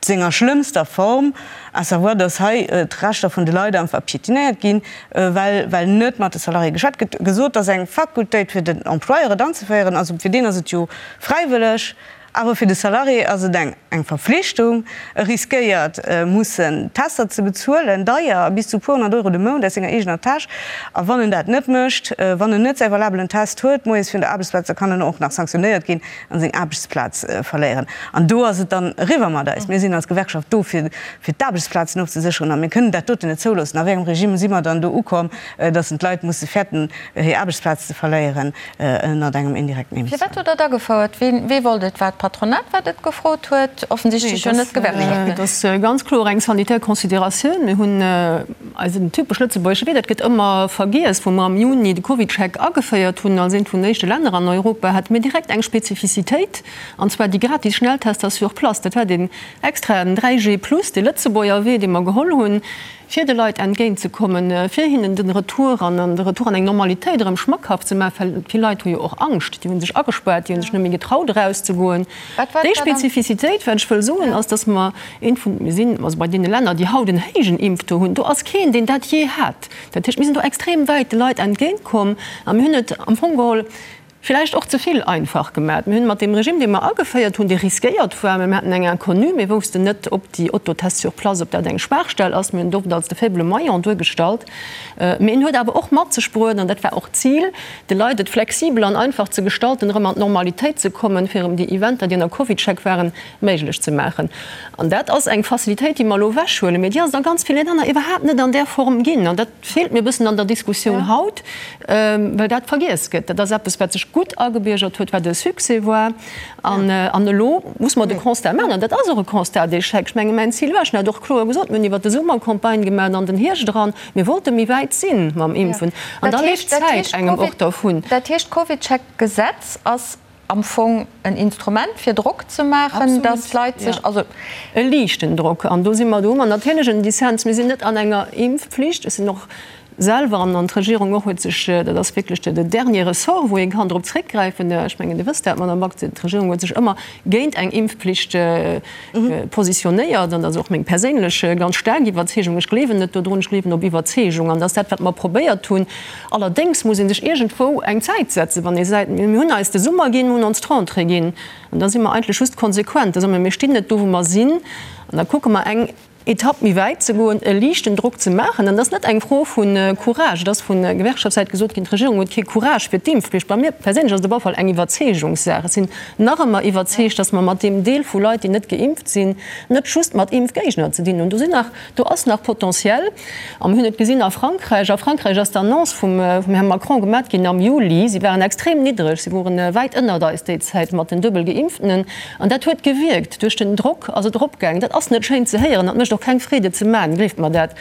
senger schlëmmster Form, à savoir, datt hei d'Rechter vun de Leit einfach piétinéiert ginn, well well net mat de Salariéë geschwat gëtt. Gesot, et ass eng Fakultéit fir den Employeur et anzeféieren, also fir deen ass et jo fräiwëlleg, awer fir de Salarié ass et eng eng Verflichtung. E riskéiert mussen Tester ze bezuelen, deier, bis zu puer honnert Euro de Mount aus senger eegener Täsch. A wann en dat net mécht, wann en net säi valabelen Test huet moies virun der Aarbechtsplaz, da kann en och nach sanktionéiert ginn an seng Aarbechtsplaz verléieren. An do ass et dann eriwwer mat eis. Mir sinn als Gewerkschaft do, fir fir d'Aarbechtsplazen ofzesécheren, a mir kënnen dat doten net zouloossen. A wéi engem Regime si mer dann do ukomm, datt en d'Leit musse fäerten, hir Aarbechtsplaz ze verléieren ënnert engem indirekten Impfzwang? Firwat hutt Der et agefouert? Wien, wee wollt et? War et d'Patronat, wat et gefrot huet? Offensichtlech jo net d'Gewerkschaften. Et ass ganz kloer eng sanitär Consideratioun. Mir hunn Eisen typesch lëtzebuergesche Wee, dat gëtt ëmmer vergiess, wou mer am Juni de CovidCheck ageféiert hunn als eent vun den éischte Länner an Europa, hate mir direkt eng Spezifizitéit, an zwar déi gratis Schnelltester sur place. Dat war deen extraen 3G plus, dee Lëtzebuerger Wee, dee mer geholl hunn, fir de Leit entgéintzekommen, fir hinnen den Retour an de Retour an eng Normalitéit erëm schmackhaft ze maachen, well vill Leit hu jo och Angscht, déi hu sech agespaart, déi hu sech net méi getraut erauszegoen. Déi Spezifizitéit, wat ech wëll soen, ass, dass mer eent vun, mir sinn also bei deene Länner, déi haut en héijen Impftaux hunn, do ass keen, deen dat jee hat. Dat heescht, mir sinn do extrem wäit de Leit entgéintkomm a mir hunn et am Fong geholl villäicht och ze vill einfach gemaat. Mir hunn mat deem Regime, dee mer ageféiert hunn, dee riskéiert war, mä mir haten eng Inconnue, mir woussten net, ob déi Autotests sur place, ob dat eng Schwaachstell ass, mir hunn et oft als de faible maillon duergestallt, mä en huet awer och mat sech bruet, an dat war och d'Zil, de Leit et flexibel an einfach ze gestalten, erëm an d'Normalitéit ze kommen, fir erëm déi Eventer, déi ënner CovidCheck waren, méiglech ze maachen. An dat ass eng Facilitéit, déi mer elo ewechhuelen, mä déi ass et a ganz ville Länner iwwerhaapt net an där Form ginn. An dat feelt mir e bëssen an der Diskussioun haut, well dat vergiess gëtt. Dat ass eppes, wat sech gutt agebiergert huet, wat e Succès war. An elo muss mer de Constat maachen, an dat ass och e Constat d'échec. Ech menge mäin Zil war, ech hunn dat och kloer gesot, mir hunn iwwert de Summer Campagne gemaach an den Hierscht eran, Mir wollte méi wäit si mam Impfen an da leeft d'Zäit engem och dervun. Dat heescht, d'CovidCheck-Gesetz ass am Fong en Instrument fir Drock ze maachen, datt d'Leit sech, also. E liichten Drock. An do si mer, do hu mer natierlech en Dissens. Mir sinn net an enger Impfpflicht. Ech sinn och. selwer an d'Regierung och huet sech, dat ass wierklech de dernier Ressort, wou ee kann drop zréckgräifen, ech mengen Dir wësst dat, Madame Back, d'Regierung huet sech ëmmer géint eng Impfpflicht positionéiert an dat ass och meng perséinlech ganz staark Iwwerzeegung. Ech gleewen net dodrun, ech gleewen op Iwwerzeegung an dat ass dat, wat mer probéiert hunn. Allerdéngs muss ee sech iergendwou eng Zäit setzen, wann ee seet, mir hunn eis de Summer ginn, mir hunn ons d'Rentrée ginn an da si mer eigentlech just konsequent, da soe mer, mir stinn net do, wou mer sinn an da kucke mer eng Etapp méi wäit ze goen, e liichten Drock ze maachen. An dat ass net eng Fro vu Courage. Et ass vu Gewerkschaftssäit gesot ginn, d'Regierung huet kee Courage fir d'Impfpflicht. Bei mir perséinlech ass et op alle Fall eng Iwwerzeegungssaach. Ech sinn nach ëmmer iwwerzeegt, datt mer mat deem Deel vu Leit, déi net geimpft sinn, net just mat Impfgéigner ze dinn hunn. Do sinn nach, do ass nach Potentiel. A mir hunn et gesinn a Frankräich. A Frankräich ass d'Annonce vum Här Macron gemat ginn am Juli. Si waren extrem niddreg, si wore wäit ënnert eis déi Zäit mat den duebel Geimpftenen. An dat huet gewierkt. Duerch den Drock ass et eropgaangen. Dat ass net schéin ze héieren, dat mécht och keng Freed et ze maachen, gleeft mer dat.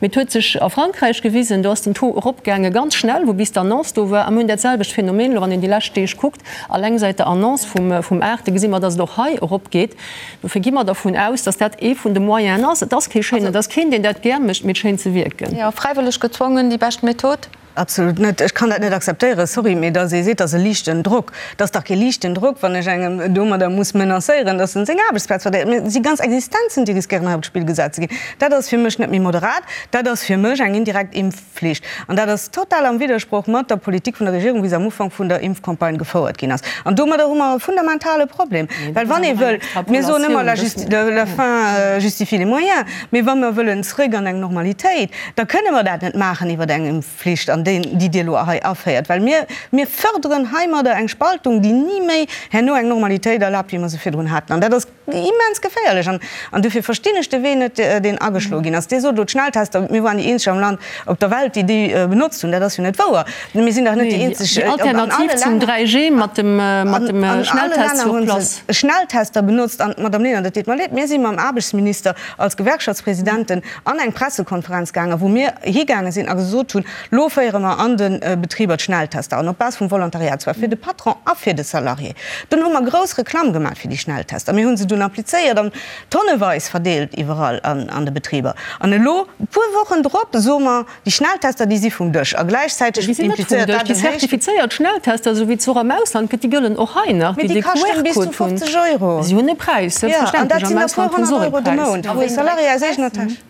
Mee et huet sech a Frankräich gewisen, do ass den Taux eropgaange ganz schnell, wou bis d'Annonce do war. A mir hunn dat selwecht Phänomen elo, wann een déi lescht Deeg kuckt, alleng säit der Annonce vum 8. gesi mer, datt et och hei eropgeet. Dofir gi mer dervun aus, datt dat ee vun de Moyenen ass. Et ass kee schéinen, et ass keen, deen dat gär mécht, mee et schéint ze wierken. Jo, fräiwëlleg gezwongen, déi bescht Method? Absolut net. Ech kann dat net akzeptéieren, sorry, mee datt ee seet, dat ass e liichten Drock. Dat ass dach kee liichten Drock, wann ech engem domadder muss menacéieren, datt en seng Aarbechtsplaz verléiert. Mir si ganz Existenzen, déi riskéieren hei op d'Spill gesat ze ginn. Dat ass fir mech net méi moderat. Dat ass fir mech eng indirekt Impfflicht. An dat ass total am Widdersproch mat der Politik vun der Regierung, wéi se am Ufank vun der Impfcampagne gefouert ginn ass. An domadder hu mer e fundamentale Problem. Well wann ee wëll, mir soen ëmmer, la fin justifie les moyens, mee wa mer wëllen zrëck an eng Normalitéit, da kënne mer dat net maachen iwwer eng Impfflicht, an déi, déi Dir elo hei aféiert, well mir, mir förderen heimadder eng Spaltung, déi ni méi herno eng Normalitéit erlaabt, wéi mer se virdrun haten. An dat ass immens geféierlech. An, an dofir verstinn ech de Wee net, deen ageschloe ginn ass. Dir sot elo d'Schnelltester, mir waren déi eenzeg am Land, op der Welt, déi déi benotzt hunn. Dat ass jo net wouer. Mir sinn dach net déi eenzeg. Déi Alternativ zum 3G mat dem, mat dem Schnelltest sur place. Schnelltester benotzt. An, Madame Lenert, et deet mer leed, mir si mam Aarbechtsminister als Gewerkschaftspresidenten an eng Pressekonferenz gaangen, wou mir higaange sinn a gesot hunn, Lo féiere mer an de Betriber d'Schnelltester an, op Base vum Volontariat, zwar fir de Patron a fir de Salarié. Dunn hu mer grouss Reklamm gemaach fir déi Schnelltester. Mir hu se dunn applizéiert an tonneweis verdeelt iwwerall an de Betriber. An elo, e puer Wochen drop, soe mer, Déi Schnelltester, déi si vum Dësch. A gläichzäiteg Déi sinn net vum implizéiert Dësch. dat Déi en héichten. zertifizéiert Schnelltester, esou wéi et se och am Ausland gëtt, déi gëllen och hei nach, Mee déi déi de kaschten bis zu QR-Code hunn. 50 Euro. Si hunn e Präis, Jo, an dat selbstverständlech. sinn Am der puer Ausland hunn se honnert och e Euro de Präis. Mount, A wou e ween dréit Salarié de aus eegener Präis? Täsch.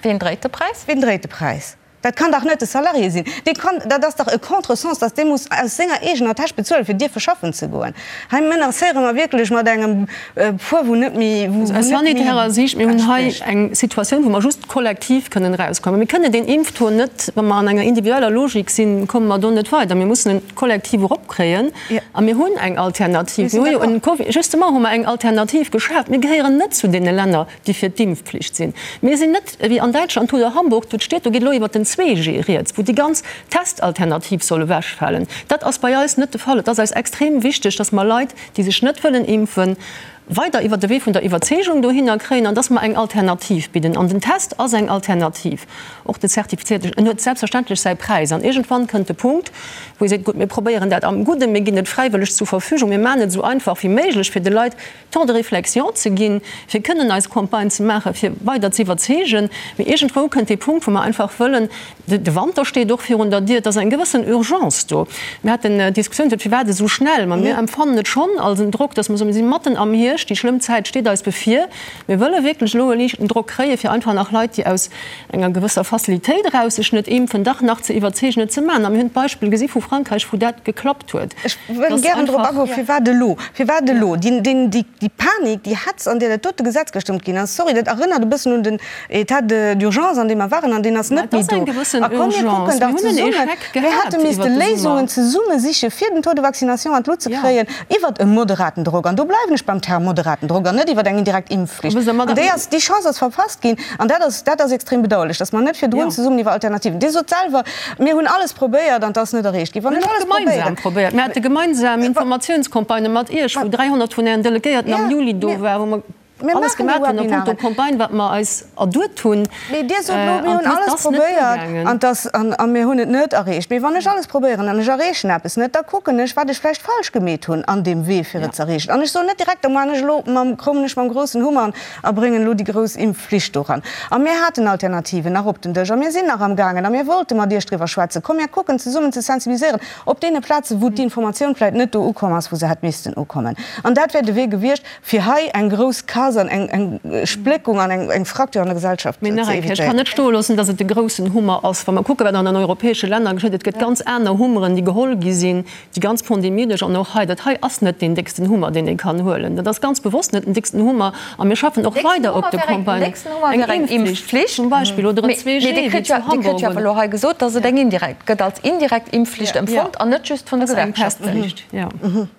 Ween dréit de Präis? Ween dréit de Präis? Dat kann dach net de Salarié sinn. Dee kann, dat ass dach e Contresens, dass dee muss aus senger eegener Täsch bezuelen, fir dierfe schaffen ze goen. Hei menacéiere mer wierklech mat engem Poids, wou net méi, wou Aus net méi sanitärer Siicht, mir hunn hei entsprécht. eng Situatioun, wou mer just kollektiv kënnen erauskommen. Mir kënnen deen Impftaux net, wa mer an enger individueller Logik sinn, komme mer do net weider. Mir mussen en kollektiv eropkréien a mir hunn eng Alternativ. Mir hu jo en Covid, justement hu mer eng Alternativ geschaaft. Mir gehéieren net zu deene Länner, déi fir d'Impfpflicht sinn. Mir sinn net ewéi an Däitschland oder Hamburg, wou d'Stied, do geet elo iwwert den 2G rieds, wou déi ganz Testalternativ soll ewechfalen. Dat ass bei eis net de Fall. Et ass eis extrem wichteg, dass mer Leit, déi sech net wëllen impfen, weider iwwert de Wee vun der Iwwerzeegung dohinner kréien an dass mer eng Alternativ bidden. An den Test ass eng Alternativ, och de zertifizierten. En huet selbstverständlech säi Präis. An iergendwann kënnt de Punkt, wou ee seet, Gutt, mir probéieren dat am Gudden, mir ginn et fräiwëlleg zur Verfügung, mir maachen et esou einfach wéi méiglech fir de Leit, Temps de réflexion ze ginn, fir kënnen eis Campagne ze maachen, fir weider ze iwwerzeegen. Mee iergendwou kënnt dee Punkt, wou mer einfach wëllen, de Wanter steet och virun der Dier, et ass eng gewëssen Urgence do. Mir haten d'Diskussioun, firwat esou schnell? Ma mir empfannen et schonn als en Drock, dass mer soen, mir si matten am Hierscht, déi schlëmm Zäit steet eis bevir. Mir wëlle wierklech elo e liichten Drock kréien, fir einfach nach Leit, déi aus enger gewësser Facilitéit eraus sech net impfen, dach nach ze iwwerzeegen, et ze maachen. A mir hunn d'Beispill gesi vu Frankräich, wou dat geklappt huet. Ech wëll gären drop agoen, firwat elo? Firwat elo? Déi Panik, déi Hetz, an där dat dote Gesetz gestëmmt ginn ass, sorry, dat erënnert e bëssen un den État d'urgence, an deem mer waren, an deen ass net méi do. A komm, mir kucken dach zesummen, mir hätte misste Léisungen zesumme siche fir den Taux de vaccination an d'Lut ze kréien, iwwert e moderaten Drock, an do bleiwen ech beim Term moderaten Drock, an net iwwert eng indirekt Impfflicht. An déi ass, déi Chance ass verpasst ginn, an dat ass, dat ass extrem bedauerlech, dass mer net virdrun zesummen iwwer Alternativen, Dir sot selwer, Mir hunn alles probéiert an et ass net erreecht ginn. Wann ech alles gemeinsam probéiert. Mir hate gemeinsam Informatiounscampagnë mat Iech, wou 300 vun Ären Delegéierten am Juli do waren, wou mer. Alles gemaach hunn a punkto Campagne, wat mer eis erduet hunn. Mee Dir sot elo, mir hunn alles probéiert an dass, a mir hunn et net erreecht. Mee wann ech alles probéieren an ech erreechen eppes net, da kucken ech, wat ech vläicht falsch gemeet hunn an deem Wee, fir et ze erreechen. An ech soen net direkt, da man ech elo mam, kommen ech mam groussen Hummer a bréngen elo déi grouss Impfflicht doran. A mir haten Alternativen nach op den Dësch a mir sinn nach amgaangen a mir wollte mat Iech driwwer schwätzen. Komm mir kucken zesummen ze sensibiliséieren op deene Plazen, wou d'Informatioun vläicht net do ukomm ass, wou se hätt missten ukommen. An dat wär de Wee gewiescht. Fir hei eng grouss Casse an eng Spléckung an eng Fracture an der Gesellschaft ze Mee nach eng Kéier, ech kann evitéieren. net stoe loossen, dass et de groussen Hummer ass. Wa mer kucken, wat an den europäesche Länner geschitt, et gëtt ganz aner Hummeren, déi geholl gi sinn, déi ganz Pandemie duerch an och hei. Dat hei ass net deen décksten Hummer, deen ee kann huelen. Dat ass ganz bewosst net den décksten Hummer. A mir schaffen och weider op de Campagnen. Eng Impfflicht zum Beispill oder en 2G, wéi zu Hamburg. Dir kritt jo awer elo hei gesot, dass et eng indirekt gëtt, als indirekt Impfflicht empfonnt an net just vun de Gewerkschaften.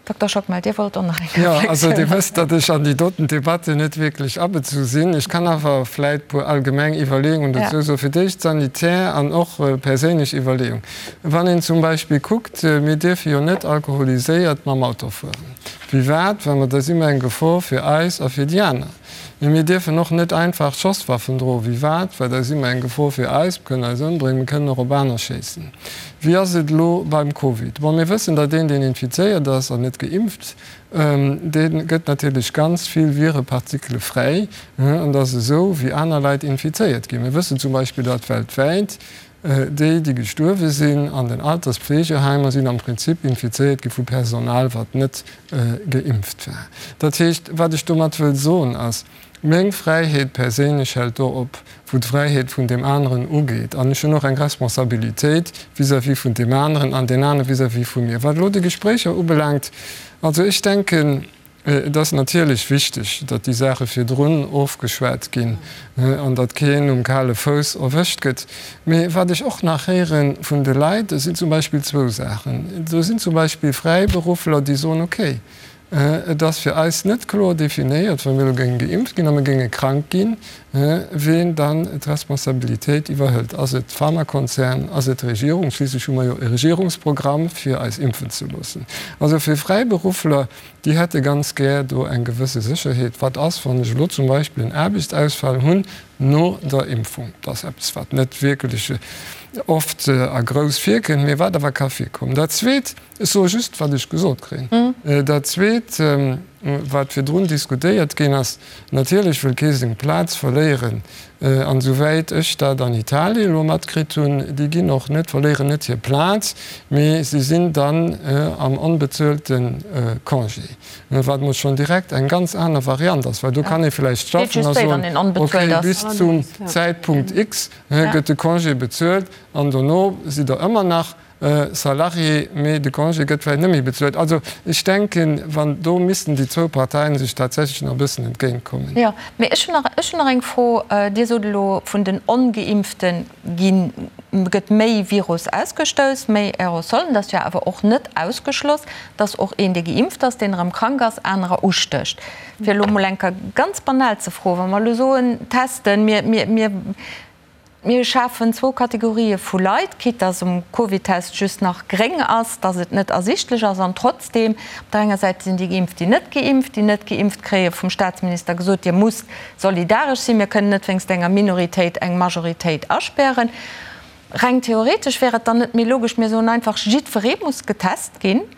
Dokter Schockmel, Dir wollt och nach eng Reflexioun maachen. Jo, also Dir wësst, datt ech an déi doten Debatte net wierklech abezu sinn. Ech kann awer vläit e puer allgemeng Iwwerleeungen dozou soen. Fir d'éischt sanitär an och perséinlech Iwwerleeung. Wann een zum Beispill kuckt, mir dierfe jo net alkoholiséiert mam Auto fueren. Firwat? Well mer da si mer eng Gefor fir eis a fir déi aner. Mee mir dierfen och net einfach Schosswaffen droen. Firwat? Well da si mer eng Gefor fir eis, mir kënnen eis ëmbréngen, mir kënnen och op aner schéissen. Wéi ass et elo beim Covid? Bon, mir wëssen, datt een, deen infizéiert ass an net geimpft, dee gëtt natierlech ganz vill Virepartikele fräi an dat ass esou, wéi aner Leit infizéiert ginn. Mir wëssen zum Beispill, datt weltwäit déi, déi gestuerwe sinn an den Alterspflegeheimer, sinn am Prinzip infizéiert gi vu Personal, wat net geimpft war. Dat heescht, wat ech domat wëll soen, ass, Meng Fräiheet perséinlech hält do op, wou d'Fräiheet vun deem aneren ugeet. An ech hunn och eng Responsabilitéit vis-à-vis vun deem aneren an deen anere vis-à-vis vu mir. Wat elo déi Gespréicher ubelaangt, also ech denken, et ass natierlech wichteg, datt déi Saache virdrun ofgeschwat ginn an datt keen um kale Fouss erwëscht gëtt. Mee wat ech och nach héiere vun de Leit, sinn zum Beispill zwou Saachen. Do sinn zum Beispill Fräiberuffler, déi soen, okay, Et ass fir eis net kloer definéiert, wa mir elo géinge geimpft ginn a mir géinge krank ginn, ween dann d'Responsabilitéit iwwerhëlt. Ass et d'Pharmakonzern, ass et d'Regierung? Schliisslech hu mer jo e Regierungsprogramm, fir eis impfen ze loossen. Also fir Fräiberuffler, déi hätte ganz gär do eng gewësse Sécherheet. Wat ass, wann ech elo zum Beispill en Aarbechtsausfall hunn no der Impfung? Dat ass eppes, wat net wierklech oft a grouss virkënnt, mee wat awer ka virkommen. Dat Zweet, Ech soe just, wat ech gesot kréien. Dat Zweet, wat virdrun diskutéiert ginn ass, Natierlech wëll kee seng Plaz verléieren. An esouwäit ech dat an Italien elo matkritt hunn, déi ginn och net, verléieren net hir Plaz, mee si sinn dann am onbezuelte Congé, wat mol schonn direkt eng ganz aner Variant ass, well do kann ee vläicht schaffen a soen, okay, bis zum Zäitpunkt X gëtt de Congé bezuelt an dono sidd Der ëmmer nach Salarié, mee de Congé gëtt vläicht net méi bezuelt. Also ech denken, wann do missten déi zwou Parteien sech tatsächlech nach e bëssen entgéintkommen. Jo, mee ech hunn nach, ech hunn nach eng Fro. Dir sot elo, vun den Ongeimpfte ginn, gëtt méi Virus ausgestouss, méi Aerosolen. Dat ass jo awer och net ausgeschloss, dass och een, dee geimpft ass, deen erëm krank ass, anerer ustécht. Fir elo emol eng Kéier ganz banal ze froen, Wa mer elo soen, testen, mir, mir, mir, Mir schafen zwou Kategorië vu Leit, quitte dass um Covidtest just nach gréng ass, dass et net ersichtlech ass an trotzdeem, op der enger Säit sinn déi Geimpft, déi net geimpft, déi net geimpft kréie vum Staatsminister gesot, Dir musst solidaresch sinn, mir kënnen net wéinst enger Minoritéit eng Majoritéit aspären. Reng theoretesch wär et dann net méi logesch, mir soen einfach, jiddweree muss getest ginn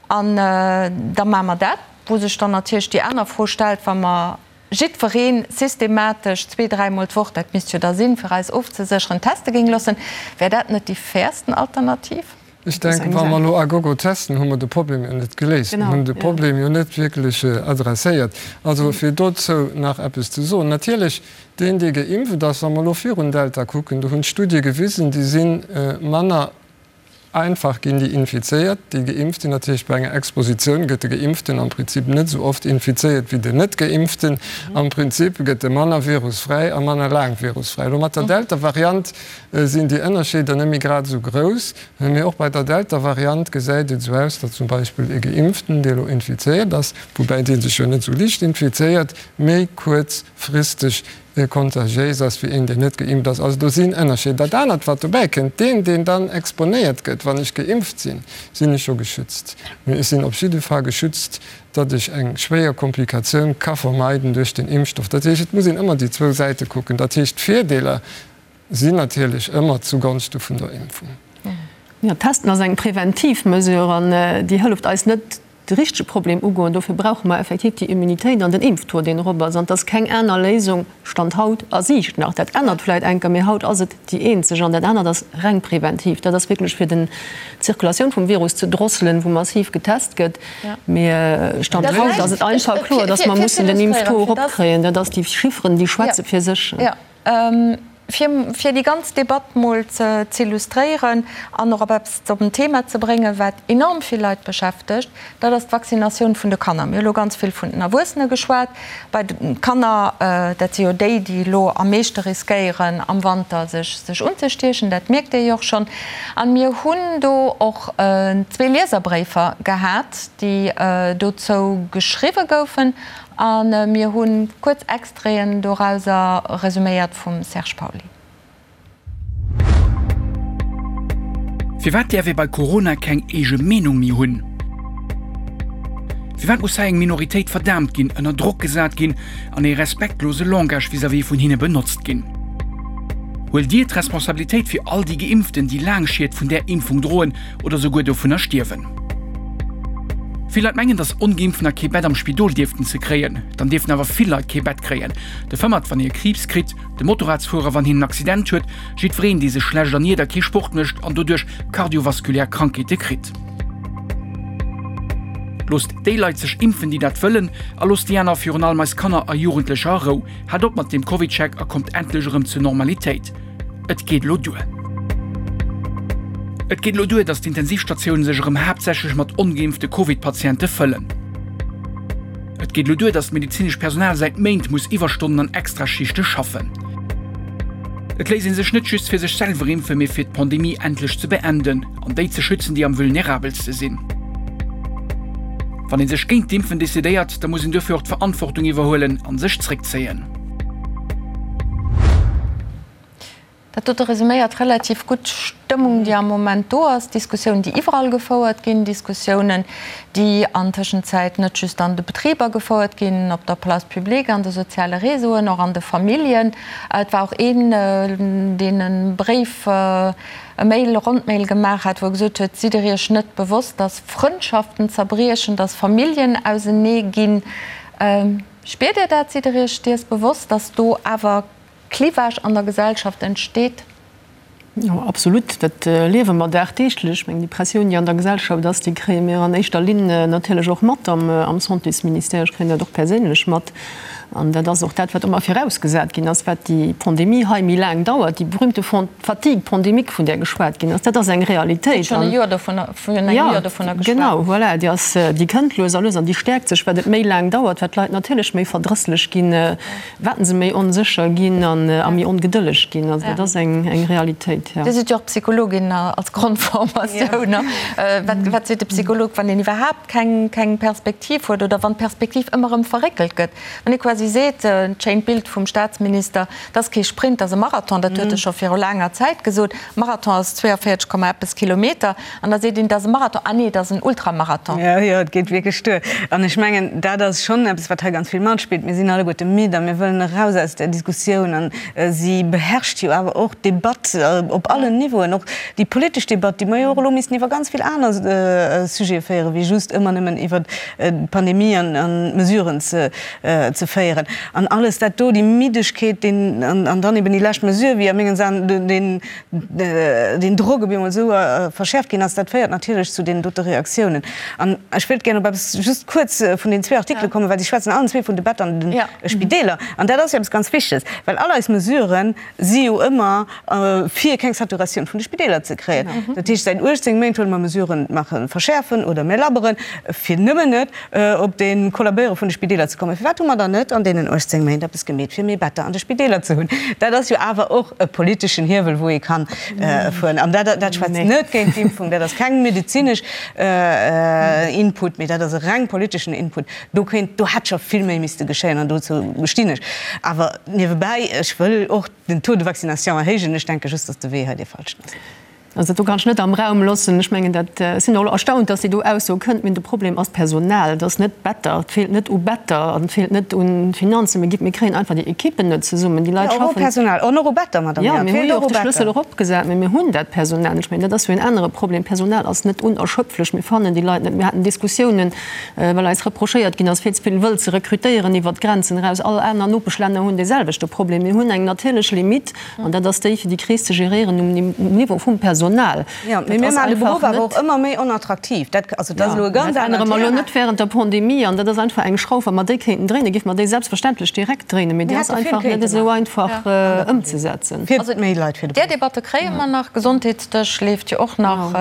an da maache mer dat, wou sech dann natierlech déi aner Fro stellt, wa mer jiddweree systematesch zwee-, dräimol d'Woch, dat misst jo da sinn, fir eis ofzesécheren, teste géing loossen, wär dat net déi fairsten Alternativ? Ech denken, wa mer elo à gogo testen, hu mer de Problem jo net geléist. Mir hunn de Problem jo net wierklech adresséiert. Also fir dozou nach eppes ze soen, Natierlech, deen, dee geimpft ass, wa mer elo virun Delta kucken, do hunn d'Studie gewisen, déi si manner, Einfach ginn déi Infizéiert, déi geimpft sinn. Dat heescht, bei enger Expositioun gëtt de Geimpften am Prinzip net esou oft infizéiert wéi den Net-Geimpften. Am Prinzip gëtt e manner virusfräi a manner laang virusfräi. Elo mat der Delta-Variant sinn déi Ënnerscheeder net méi grad esou grouss. Mee och bei der Delta-Variant gesäit et esou aus, datt zum Beispill e Geimpften, dee elo infizéiert ass, woubäi dee sech jo net esou liicht infizéiert, méi kuerzfristeg kontagiéis ass wéi een, deen net geimpft ass. Also do sinn Ënnerscheeder. Dat anert, wat dobäi kënnt, deen, deen dann exponéiert gëtt. seet, wann ech geimpft sinn, sinn ech jo geschützt. Mee ech sinn op jidde Fall geschützt, datt ech eng schwéier Komplikatioun ka vermeiden duerch den Impfstoff. Dat heescht, et muss een ëmmer déi zwou Säite kucken. Dat heescht, d'Virdeeler sinn natierlech ëmmer zugonschte vun der Impfung. Jo, Testen ass eng preventiv Mesure an déi hëlleft eis net, de richtege Problem ugoen. Dofir brauche mer effektiv déi Immunitéit an den Impftaux, deen erop ass. An et ass keng aner Léisung, Stand haut, a Siicht nach. Dat ännert vläicht eng Kéier, mee haut ass et déi eenzeg. An dat anert ass reng preventiv. Dat ass wierklech fir den d'Zirkulatioun vum Virus ze drosselen, wou massiv getest gëtt. Mee Stand haut ass et einfach kloer, dass mer mussen den Impftaux eropkréien. Dat ass, déi Chifferen, déi schwätze fir sech. Fir, fir déi ganz Debatt mol ze z'illustréieren an och op eppes op en Thema ze bréngen, wat enorm vill Leit beschäftegt, dat ass d'Vaccinatioun vun de Kanner. Mir hu lo ganz vill vun den Erwuessene geschwat. Bei de Kanner, dat si jo déi, déi elo am meeschte riskéieren, am Wanter sech, sech unzestiechen, dat mierkt Dir jo och schonn. An mir hunn do och zwee Lieserbréifer gehat, déi dozou geschriwwe goufen. A mir hu kuerz Extraiten dorauser, resuméiert vum Serge Pauly. Firwat däerf ee bei Corona keng eege Meenung méi hunn? Firwat muss hei eng Minoritéit verdaamt ginn, ënner Drock gesat ginn an ee respektlose Langage vis-à-vis vun hinne benotzt ginn? Huelt Dir d'Responsabilitéit fir all déi Geimpften, déi laang Schied vun där Impfung droen oder souguer dovunner stierwen? Vill Leit mengen, datt Ongeimpftener kee Bett am Spidol dierften ze kréien. Dann dierften awer vill Leit kee Bett kréien. De Fëmmert, wann hie Kriibs kritt, de Motorradsfuerer, wann hien en Accident huet, jiddwereen, dee sech schlecht erniert a kee Sport mécht an doduerch kardiovaskulär Krankheete kritt. Loosst déi Leit sech impfen, déi dat wëllen, a loosst déi aner, virun allem eis Kanner a Jugendlecher, a Rou. Haalt op mat deem CovidCheck a kommt endlech erëm zur Normalitéit. Et geet elo duer! Et geet elo duer, datt d'Intensivstatioune sech erëm haaptsächlech mat ongeimpfte Covid-Patiente fëllen. Et geet elo duer, datt d'medezinescht Personal säit Méint muss Iwwerstonnen an Extraschichte schaffen. Et léisst ee sech net just fir sech selwer impfen, mee fir d'Pandemie endlech ze beenden an déi ze schützen, déi am vulnerabelste sinn. Wann ee sech géint d'Impfen decidéiert, da muss een duerfir och d'Verantwortung iwwerhuelen a sech zréckzéien. Dat dote resuméiert relativ gutt d'Stëmmung, déi am Moment do ass, Diskussiounen, déi iwwerall gefouert ginn, Diskussiounen, déi an Tëschenzäit net just an de Betriber gefouert ginn, op der Place publique, an de soziale Réseauen, och an de Familljen. Et war och een, deen e Bréif, e Mail, e Rondmail gemaach hat, wou e gesot huet, Sidd Der Iech net bewosst, dass Frëndschaften zerbriechen, dass Familljen ausenee ginn? Spiert Dir dat? Sidd Der Iech dees bewosst, dass do awer Clivage an der Gesellschaft entsteet? Jo, absolut. Dat liewe mer dagdeeglech. Ech mengen, déi Pressioun, déi an der Gesellschaft ass, déi kréie mir an éischter Linn natierlech och mat am Santésministère. Ech kréien dat och perséinlech mat. An dat ass och dat, wat ëmmer virausgesat ginn ass, wat déi Pandemie hei méi laang dauert, déi berühmte Fatigue pandémique, vun där geschwat ginn ass, dat ass eng Realitéit. Huet schonn e Joer dovunner, virun engem Joer dovunner geschwat. Genau, voilà, déi ass, déi kënnt lues a lues an déi stäerkt sech, wat et méi laang dauert, wat d'Leit natierlech méi verdrësslech ginn, Wat se méi onsécher ginn an a méi ongedëlleg ginn. Also dat ass eng eng Realitéit, jo. Dir sidd jo och Psychologin als Grondformatioun. Wat wat seet de Psycholog, wann een iwwerhaapt keng keng Perspektiv huet oder wann d'Perspektiv ëmmer erëm verréckelt gëtt? Wann ee quasi seet, d'schéint Bild vum Staatsminister, dat ass kee Sprint, dat ass e Marathon, dat huet e scho viru laanger Zäit gesot, Marathon ass 42 Komma eppes Kilometer. An da seet een, dat ass e Marathon. Ah nee, dat ass en Ultramarathon. Jo, jo, et geet wierklech duer. An ech mengen, dat ass schonn eppes, wat hei ganz vill matspillt. Mir sinn alleguerte midd a mir wëllen eraus aus där Diskussioun. An si beherrscht jo awer och d'Debatt op allen Niveauen, och déi politesch Debatt, déi mer jo och elo missten iwwer ganz vill aner Sujete féieren, wéi just ëmmer nëmmen iwwer d'Pandemie an d'Mesuren ze féieren. An alles dat do, déi Middegkeet, deen, an dann eben déi lescht Mesure, wéi a mengen Aen deen, deen Drock op eemol esou verschäerft ginn ass, dat féiert natierlech zu deenen dote Reaktiounen. An ech wéilt gären op eppes just kuerz vun den zwee Artikele kommen, well si schwätzen allen zwee vun de Better an de Spideeler. An dat ass jo eppes ganz Wichteges, well all eis Mesurë si jo ëmmer fir keng Saturatioun vun de Spideeler ze kréien. Dat heescht, säit 18 Méint huele mer Mesuren, maache verschäerfen oder mir labberen, fir nëmmen net op de Kollabéiere vun de Spideeler ze kommen. Firwat hu mer dann net an deenen 18 Méint eppes gemeet, fir méi Better an de Spideeler ze hunn? Dat ass jo awer och e politeschen Hiewel, wou ee kann fueren. An dat, dat schwätzt net géint d'Impfung, dat ass keng medezinesch Input, mee dat ass e reng politeschen Input. Do kéint, do hätt scho vill méi misste geschéien an dozou stinn ech. Awer niewebäi, ech wëll och den Taux de vaccination erhéijen. Ech denke just, datt de Wee hei dee falschen ass. Also dat do kann ech net am Raum loossen. Ech mengen dat, ech sinn och elo erstaunt, dass déi do Ausso kënnt. Mee de Problem ass d'Personal. Et ass net d'Better. Et feelt net u Better an et feelt net u Finanzen. Mir gi, mir kréien einfach déi Ekippen net zesummen. Déi Leit Jo, och u schaffen. Personal an och u Better, Madame Jo, Err. Et mir hu feelt jo och och u de Schlëssel Better. eropgesat, mee mir hunn dat Personal net. Ech mengen, dat ass jo en anere Problem. D'Personal ass net unerschöpflech. Mir fannen déi Leit net. Mir haten Diskussiounen, well eis reprochéiert ginn ass, vill ze vill wëll ze rekrutéieren iwwert d'Grenzen eraus. All aner Nopeschlänner hunn dee selwechte Problem. Mir hunn eng natierlech Limite. An dat ass déi, fir déi Kris ze geréieren um Niveau vum Personal. Jo, mee mir maachen de Beruff awer och ëmmer méi onattraktiv. Dat, also dat ass elo e ganz anert Thema. Dat ännere mer elo net während der Pandemie. An dat ass einfach eng Schrauf, wa mer déi kéinten dréinen, géife mer déi selbstverständlech direkt dréinen. Mee déi ass einfach net esou einfach ëmzesetzen. Fir méi Leit fir de Där Debatte kréie mer nach. Gesondheetsdësch leeft jo och nach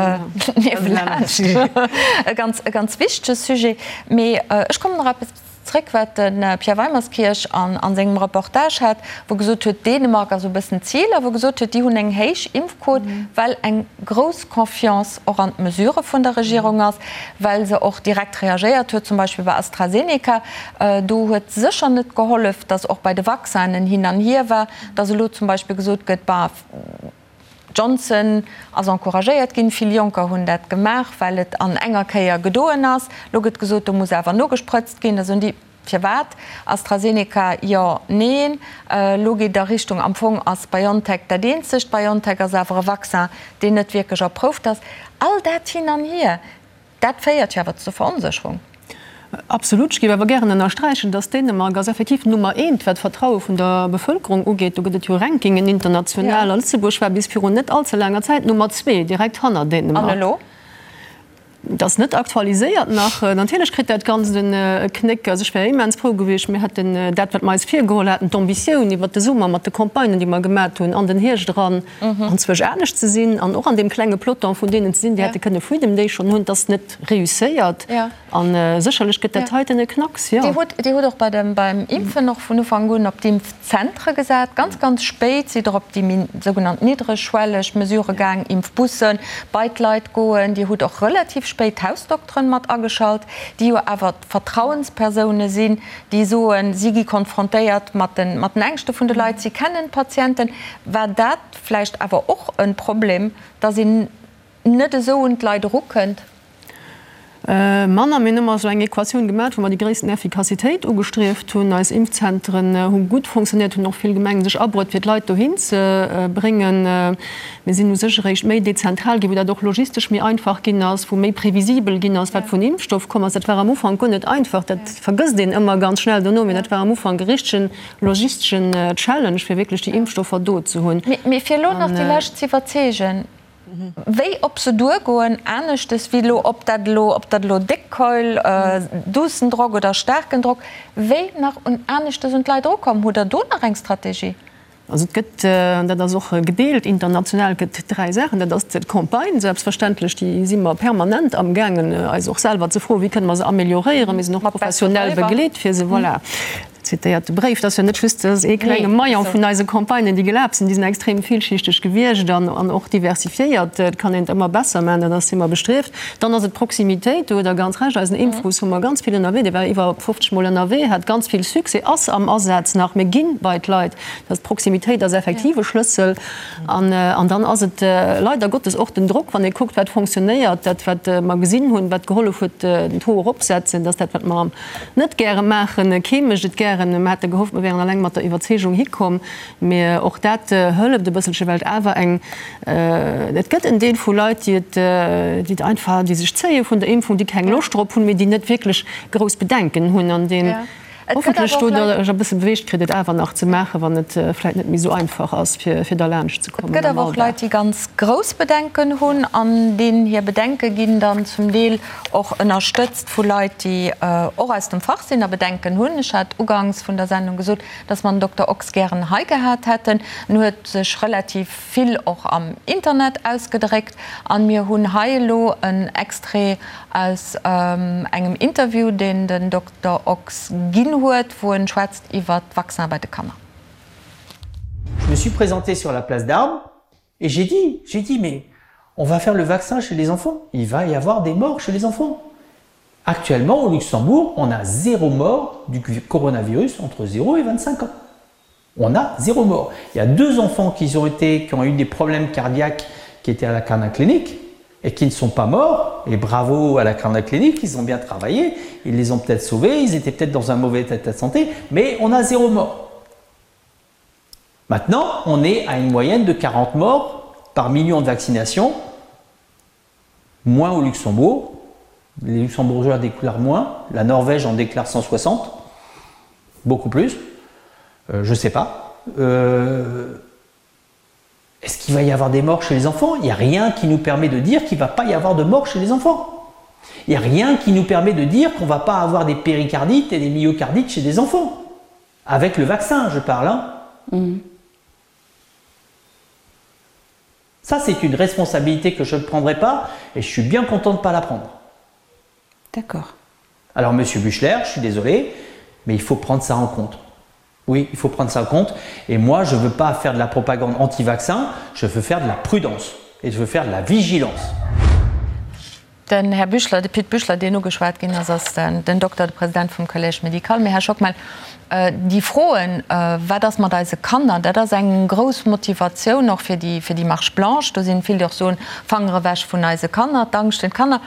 niewelaanscht. E ganz, e ganz wichtege Sujet. Mee ech kommen nach eppes. Zréck wat de Pierre Weimerskirch an sengem Reportage hat, wou gesot huet, Dänemark ass esou e bëssen d'Zil, a wou gesot huet, déi hunn eng héich Impfquot, well eng grouss Confiance och an d'Mesurë vun der Regierung ass, well se och direkt reagéiert huet, zum Beispill bei AstraZeneca. Do huet sécher net gehollef, datt och bei de Vaccinen hin an hier war, datt elo zum Beispill gesot gëtt, bah, Johnson ass encouragéiert ginn. Vill Jonker hunn dat gemaach, well et an enger Kéier gedoen ass. Lo gëtt gesot, do muss awer nogesprëtzt ginn. Da soen déi, Firwat? AstraZeneca, jo, neen. Lo geet et a Richtung, am Fong ass BioNTech dat eenzegt. BioNTech ass awer e Vaccin, deen net wierklech erprouft ass. All dat hin an hier. Dat féiert jo awer zur Veronsécherung. Absolut. Ech géif awer gären ënnersträichen, dass Dänemark ass effektiv Nummer eent, wat d'Vertraue vun der Bevëlkerung ugeet. Do gëtt et jo Rankingen international. A Lëtzebuerg war bis virun net allze laanger Zäit Nummer zwee, direkt hanner Dänemark. An elo? Dat ass net aktualiséiert nach. Natierlech kritt dat Ganzt e Knéck. Also ech wär immens frou gewiescht, mir hätten dat, wat mer eis virgeholl haten, d'Ambitioun iwwert de Summer mat de Campagnen, déi mer gemat hunn, an den Hierscht eran, anzwousch anescht ze sinn an och an deem klenge Peloton vun deenen ze sinn, déi hätte kënne Freedom Day schonn hunn, dat ass net reusséiert. A sécherlech gëtt dat heiten e Knacks, jo. Dir hutt, Dir hutt och bei dem, beim Impfen och vun Ufank un op d'Impfzentre gesat. Ganz, ganz spéit sidd Der op déi méi sougenannt niddregschwelleg Mesurë gaang, Impfbussen, bei d'Leit goen. Dir hutt och relativ spéit d'Hausdokteren mat ageschalt, déi jo awer d'Vertrauenspersoune sinn, déi soen, si gi konfrontéiert mat den, mat den Ängschte vun de Leit, si kennen d'Patienten. War dat vläicht awer och e Problem, datt een net esou un d'Leit erukënnt? Manner. Mir hunn ëmmer esou eng Equatioun gemaach, wou mer déi gréissten Effikassitéit ugestrieft hunn. Eis Impfzentren hu gutt fonctionnéiert, hunn och vill Gemengen sech abruet, fir d'Leit dohin ze bréngen. Mir sinn u sech eréischt méi dezentral ginn, wou dat och logistesch méi einfach ginn ass, wou méi previsibel ginn ass, wat vun Impfstoff komm ass. Dat war am Ufank guer net einfach. Dat vergësst een ëmmer ganz schnell dono, mee dat war am Ufank e richtegen logisteschen Challenge, fir wierklech déi Impfstoffer do ze hunn. Mee fir elo nach déi Lescht z'iwwerzeegen, wéi op se duergoen, aneschtes wéi elo, ob dat elo, ob dat elo déck Keul, duussen Drock oder staarken Drock, wéi nach un aneschtes un d'Leit erukommen, hutt Der do nach eng Strategie? Also et gëtt, an dat ass och gedeelt international, et gëtt dräi Saachen. Dat ass d'Campagne selbstverständlech, déi si mer permanent amgaangen eis och selwer ze froen, wéi kënne mer se amélioréieren. Mir sinn och professionell begleet fir se, voilà. Zitéiert de Bréif, dat ass jo net just dat ass ee klenge Maillon vun eise Campagnen, déi gelaf sinn, déi sinn extrem villschichteg gewiescht an an och diversifiéiert. Et kann een et ëmmer besser maachen, dat ass si mer bestrieft. Dann ass et d'Proximitéit, do hutt Der ganz Recht, eisen Impfbus hu mer ganz vill ënnerwee, dee war iwwer 50 Mol ënnerwee, hat ganz vill Succès, ass am Asaz nach, mir gi bei d'Leit. Dat d'Proximitéit ass effektiv e Schlëssel. An an dann ass et leider Gottes och den Drock, wann ee kuckt, wat fonctionnéiert, dat wat mer gesinn hunn, wat gehollef huet, den Taux eropsetzen, dass dat wat mer am net gäre maachen, kee mécht et gären, mer hate gehofft, mer wären alleng mat der Iwwerzeegung hikomm, mee och dat hëlleft e bësselche, well et awer eng, et gëtt en Deel vu Leit, déi et, déi et einfach, déi sech zéie vun der Impfung, déi keng Loscht drop hunn, mee déi net wierklech grouss Bedenken hunn an deen hoffentlech do der e bësse beweegt kritt, et awer nach ze maachen, wann et vläicht net méi esou einfach ass, fir derlaanscht ze kommen. Et gëtt awer och Leit, déi ganz grouss Bedenken hunn an deenen hir Bedenke ginn dann zum Deel och ënnerstëtzt vu Leit, déi och aus dem Fach sinn a Bedenken hunn. Ech hat ugangs vun der Sendung gesot, dass mer den Dokter Ochs gären hei gehat hätten. En huet sech relativ vill och am Internet ausgedréckt an mir hunn hei elo en Extrait aus engem Interview, deen den Dokter Ochs ginn huet, wou en schwätzt iwwert d'Vaccin bei de Kanner. Je me suis présenté sur la place d'Armes et j'ai dit, j'ai dit mais on va faire le vaccin chez les enfants, il va y avoir des morts chez les enfants. Actuellement au Luxembourg, on a zéro mort du coronavirus entre 0 et 25 ans. On a zéro mort. Il y a deux enfants qui ont été qui ont eu des problèmes cardiaques, qui étaient à la Clinique et qui ne sont pas morts. Et bravo à la Clinique, ils ont bien travaillé, ils les ont peut-être sauvés, ils étaient peut-être dans un mauvais état de santé, mais on a zéro mort. Maintenant, on est à une moyenne de 40 morts par million de vaccinations, moins au Luxembourg. Les Luxembourgeois déclarent moins, la Norvège en déclare 160, beaucoup plus. Euh, je ne sais pas. Euh, est-ce qu'il va y avoir des morts chez les enfants Il n'y a rien qui nous permet de dire qu'il ne va pas y avoir de morts chez les enfants. Il n'y a rien qui nous permet de dire qu'on ne va pas avoir des péricardites et des myocardites chez des enfants. Avec le vaccin, je parle. Hein. Mmh. Ça, c'est une responsabilité que je ne prendrai pas et je suis bien content de ne pas la prendre. D'accord. Alors, monsieur Buchler, je suis désolé, mais il faut prendre ça en compte. Oui, il faut prendre ça en compte. Et moi, je ne veux pas faire de la propagande anti-vaccin, je veux faire de la prudence et je veux faire de la vigilance. Den Här Büchler, de Pit Büchler, deen ugeschwat ginn ass, ass den Dokter, de President vum Collège médical. Mee, Här Schockmel, déi Froen, wat ass mat eise Kanner, dat ass eng grouss Motivatioun och fir déi, fir déi Marche blanche. Do sinn vill, déi och soen, Fanger ewech vun eise Kanner, d'Angscht vun Kanner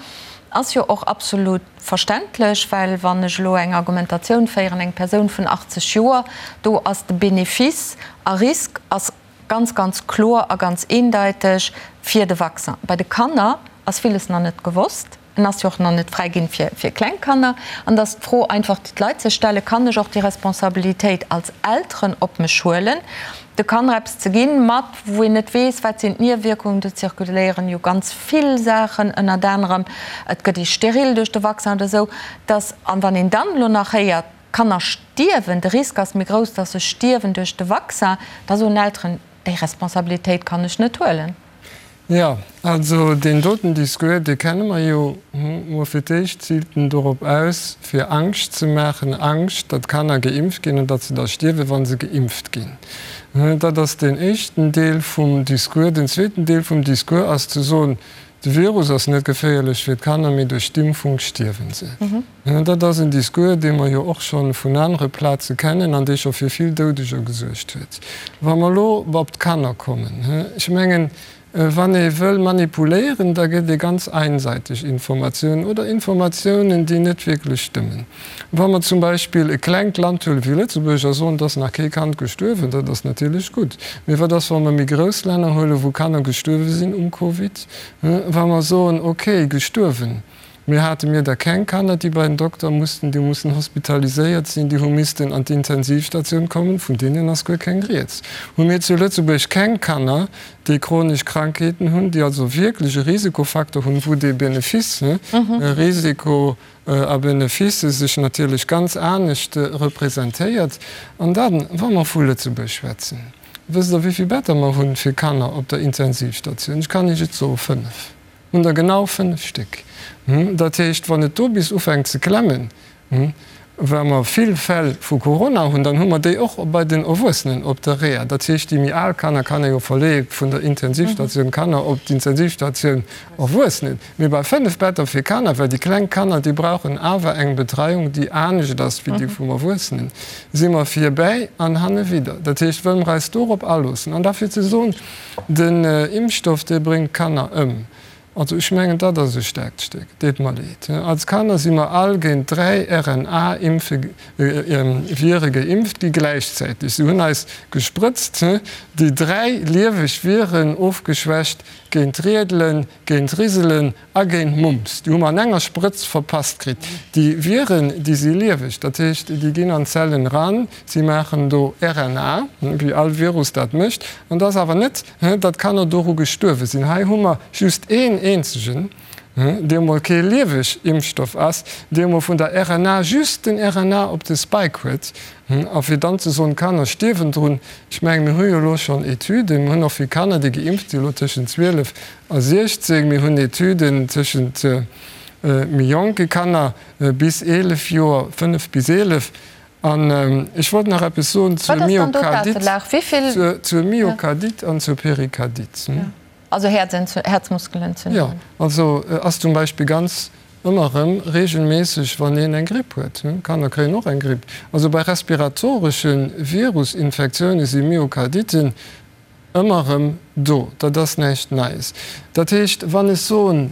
ass jo och absolut verständlech, well wann ech elo eng Argumentatioun féieren, eng Persoun vun 80 Joer, do ass de Benefice a Risk ass ganz, ganz kloer a ganz eendeiteg fir de Vaccin. Bei de Kanner ass villes nach net gewosst. En ass jo och nach net fräiginn fir, fir kleng Kanner. An et ass d'Fro einfach, déi d'Leit sech stellen, Kann ech och déi Responsabilitéit als Elteren op mech huelen, de Kanner eppes ze ginn, mat wou een net weess, wat sinn d'Niewierkungen? Do zirkuléieren jo ganz vill Saachen, ënnert anerem, et gëtt ee steril duerch de Vaccin oder esou, dass, an wann een dann elo nach héiert, Kanner stierwen, de Risk ass méi grouss, dass se stierwen duerch de Vaccin, da soen Elteren, déi Responsabilitéit kann ech net huelen. Jo, also deen doten Discours, dee kenne mer jo. Mol fir d'éischt ziilt en dorop aus, fir Angscht ze maachen, Angscht, datt Kanner geimpft ginn an datt se da stierwen, wa se geimpft ginn. Dat ass deen éischten Deel vum Discours. Den zweeten Deel vum Discours ass ze soen, de Virus ass net geféierlech fir d'Kanner, mee duerch d'Impfung stierwe se. Dat ass en Discours, dee mer jo och scho vun anere Plaze kennen an dee scho fir vill Doudeger gesuergt huet. Wa mer elo op d'Kanner kommen, ech mengen, wann ee wëll manipuléieren, da gëtt ee ganz einseiteg Informatiounen oder Informatiounen, déi net wierklech stëmmen. Wa mer zum Beispill e klengt Land huele wéi Lëtzebuerg a soen, et ass nach kee Kand gestuerwen, dat ass natierlech gutt. Mee wat ass, wa mer méi grouss Länner huelen, wou Kanner gestuerwe sinn um Covid? Wa mer soen, okay, gestuerwen, Mir hate mir da keng Kanner, déi bei den Dokter mussten, déi hu mussen hospitaliséiert sinn, déi hu missten an d'Intensivstatioun kommen, vun deenen ass guer keng Rieds. Hu mir zu Lëtzebuerg keng Kanner, déi chronesch Krankheeten hunn, déi also wierklech e Risikofaktor hunn, wou dee Benefice, Risiko a Benefice sech natierlech ganz anescht representéiert. An dann, wa mer vu Lëtzebuerg schwätzen, wësst Der, wéi vill Better mer hunn fir Kanner op der Intensivstatioun? Ech kann Iech et soen, fënnef. Hunn der genau 5 Stéck. Dat heescht, wann et do bis ufänkt ze klemmen, well mer vill Fäll vu Corona hunn, dann hu mer déi och bei den Erwuessenen op der Reha. Dat heescht, déi méi al Kanner kann ee jo verleeë vun der Intensivstatioun Kanner op d'Intensivstatioun Erwuessenen. Mee bei 5 Better fir Kanner, well déi kleng Kanner, déi brauchen awer eng Betreiung, déi anescht ass wéi déi vum Erwuessenen, si mer virbäi an hanne widder. Dat heescht, wëlle mer eis dorop aloossen an da fir ze soen, Den Impfstoff, dee bréngt d'Kanner ëm. Also ech mengen, dat ass e staarkt Stéck. Deet mer leed. Als Kanner si mer all géint 3 RNA-Impfe-Vire geimpft gi gläichzäiteg. Se hunn eis gesprëtzt, déi 3 lieweg Viren, ofgeschwächt, géint Riedelen, géint Riselen A géint Mumps. Déi hu mer an enger Sprëtz verpasst kritt. Déi Viren, déi si lieweg, dat heescht, déi ginn an d'Zellen eran, si maachen do RNA, wéi all Virus dat mécht. An et ass awer net, datt Kanner doru gestuerwe sinn. Hei hu mer just een eenzegen, dee emol kee lieweg Impfstoff ass, dee emol vun der RNA just den RNA op de Spike huet. A fir dann ze soen, d'Kanner stierwen drun, ech mengen, mir hu jo elo schonn Etüden, mir hunn och vill Kanner, déi geimpft sinn, elo tëschent 12 a 16, mir hunn Etüden tëschent méi jonke Kanner bis 11 Joer, 5 bis 11. An ech wollt nach eppes soen zur Myokardit, zur Myokardit an zur Perikardit. Also Häerzmuskelentzündungen. Jo, also ass zum Beispill ganz ëmmer erëm regelméisseg, wann een eng Gripp huet. Kanner kréien och eng Gripp. Also bei respiratoresche Virusinfektioune si Myokarditten. ëmmer erëm do. Dat ass näischt Neies. Dat heescht, wann ech soen,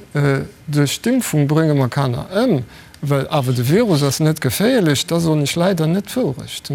duerch d'Impfung brénge mer Kanner ëm, well awer de Virus ass net geféierlech, da soen ech leider net d'Wourecht.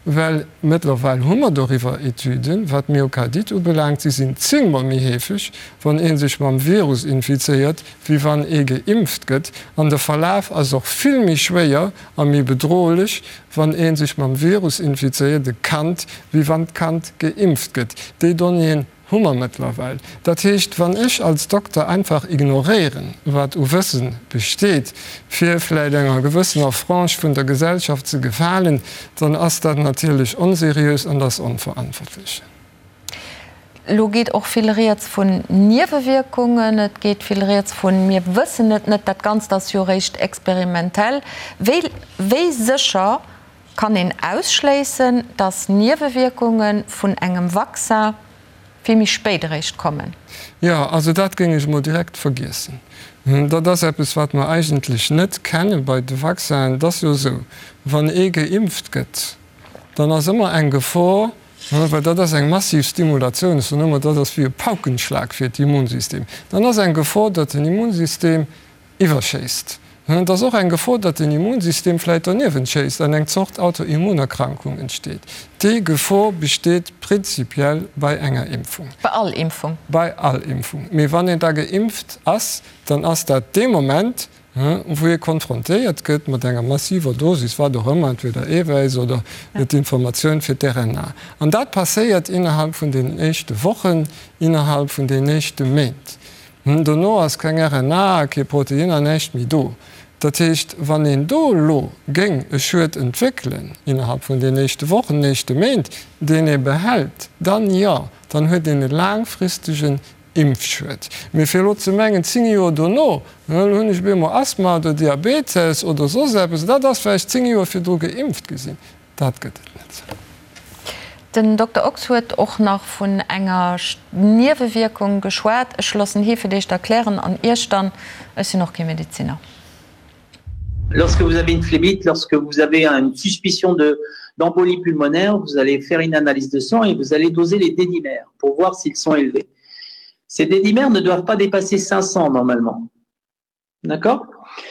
Well mëttlerweil hu mer doriwwer Etüden, wat d'Myokardite ubelaangt, si sinn zéngmol méi heefeg, wann ee sech mam Virus infizéiert, wéi wann ee geimpft gëtt. An de Verlaf ass och vill méi schwéier a méi bedrohlech, wann ee sech mam Virus infizéiert, e Kand, wéi wann d'Kand geimpft gëtt. Déi Donnéeën hu mer mëttlerweil. Dat heescht, wann ech als Dokter einfach ignoréieren, wat u Wësse besteet, fir vläicht enger gewëssener Frange vun der Gesellschaft ze gefalen, dann ass dat natierlech onseriös an ass onverantwortlech. Elo geet och vill Rieds vun Niewewierkungen, et geet vill Rieds vun mir wëssen et net, dat Ganzt ass jo eréischt experimentell. Wéi, wéi sécher kann een ausschléissen, datt Niewewierkunge vun engem Vaccin vill méi spéit eréischt kommen? Jo, also dat géing ech emol direkt vergiessen. Dat ass eppes, wat mer eigentlech net kenne bei de Vaccinen. Et ass jo esou, wann ee geimpft gëtt, dann ass ëmmer eng Gefor, Well dat ass eng massiv Stimulatioun, ech soen ëmmer, dat ass wéi e Paukenschlag fir d'Immunsystem. Dann ass eng Gefor, datt den Immunsystem iwwerschéisst. Et ass och eng Gefor, datt den Immunsystem vläicht doniewent schéisst an eng Zort Autoimmunerkrankung entsteet. Déi Gefor besteet prinzipiell bei enger Impfung. Bei all Impfung? Bei all Impfung. Mee wann een da geimpft ass, dann ass dat dee Moment, wou ee konfrontéiert gëtt mat enger massiver Dosis, wat och ëmmer, entweder Eewäiss oder d'Informatioun fir d'RNA. An dat passéiert innerhalb vun deenen éischte Wochen, innerhalb vun deenen éischte Méint. Dono ass keng RNA, kee Protein an näischt méi do. Dat heescht, wann een do elo géing e Schued entwéckelen innerhalb vun deenen éischte Wochen, éischte Méint, deen ee behält, dann jo, dann huet een e laangfristegen Impfschued. Mee fir elo ze mengen, 10 Joer dono, elo hunn ech op eemol Asthma oder Diabetes oder soss eppes, dat ass well ech 10 Joer virdru geimpft gi sinn, dat gëtt et net. Den Dokter Ochs huet och nach vun enger Niewewierkung geschwat. Ech loossen hie fir d'éischt erklären an Iech dann, ech sinn och kee Medeziner. Lorsque vous avez une phlébite, lorsque vous avez une suspicion de d'embolie pulmonaire, vous allez faire une analyse de sang et vous allez doser les dédimères pour voir s'ils sont élevés. Ces dédimères ne doivent pas dépasser 500 normalement. D'accord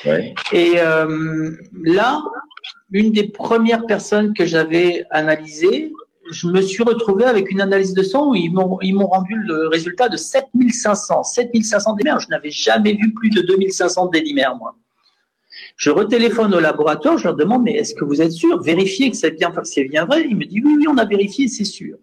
ouais. Et euh, là, une des premières personnes que j'avais analysées, je me suis retrouvé avec une analyse de sang où ils m'ont rendu le résultat de 7500. 7500 dédimères, je n'avais jamais vu plus de 2500 dédimères, moi. Je retéléphone au laboratoire, je leur demande mais est-ce que vous êtes sûr Vérifiez que c'est bien, bien vrai. Il me dit oui, oui, on a vérifié, c'est sûr.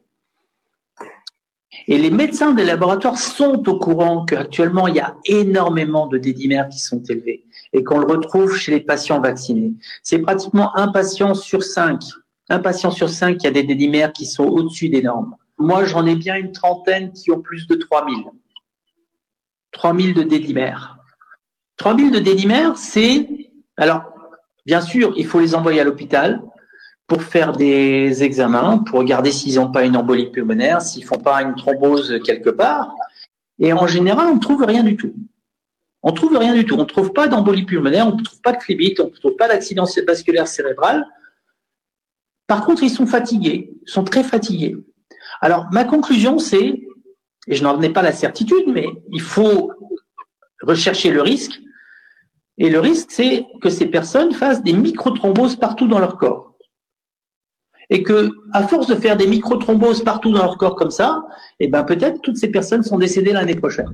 Et les médecins des laboratoires sont au courant qu'actuellement, il y a énormément de dédimères qui sont élevés et qu'on le retrouve chez les patients vaccinés. C'est pratiquement un patient sur cinq. Un patient sur cinq qui a des dédimères qui sont au-dessus des normes. Moi, j'en ai bien une trentaine qui ont plus de 3000. 3000 de dédimères. 3000 de dédimères, c'est… Alors, bien sûr, il faut les envoyer à l'hôpital pour faire des examens, pour regarder s'ils n'ont pas une embolie pulmonaire, s'ils font pas une thrombose quelque part. Et en général, on ne trouve rien du tout. On ne trouve rien du tout. On ne trouve pas d'embolie pulmonaire, on ne trouve pas de phlébite, on ne trouve pas d'accident vasculaire cérébral. Par contre, ils sont fatigués, ils sont très fatigués. Alors, ma conclusion, c'est, et je n'en ai pas la certitude, mais il faut rechercher le risque. Et le risque, c'est que ces personnes fassent des microthromboses partout dans leur corps. Et que, à force de faire des microthromboses partout dans leur corps comme ça, eh ben peut-être toutes ces personnes sont décédées l'année prochaine.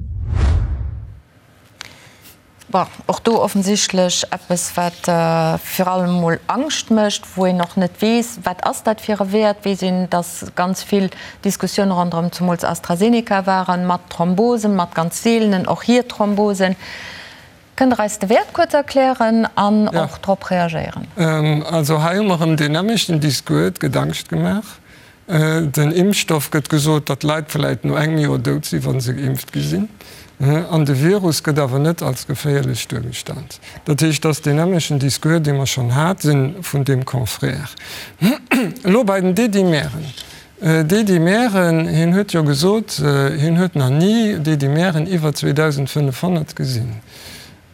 Bon, och do offensichtlech eppes, wat vir allem emol Angscht mécht, wou een och net weess, wat ass dat fir e Wäert. Weess een, datt ganz vill Diskussioune ronderëm zumools AstraZeneca waren, mat Thrombosen, mat ganz seelenen, och hir Thrombosen. Kënnt Der eis de Wäert kuerz erklären an och drop reagéieren? Also hei hu mer erëm deen nämmlechten Discours, et gëtt Angscht gemaach. Den Impfstoff gëtt gesot, datt d'Leit vläit no engem Joer dout sinn, wa se geimpft gi sinn. An de Virus gëtt awer net als geféierlech duergestallt. Dat heescht, et ass deen nämmlechen Discours, dee mer schonn hate vun deem Confrère. Elo bei den D-Dimeren. D-Dimeren, hien huet jo gesot, hien huet nach ni D-Dimeren iwwer 2.500 gesinn.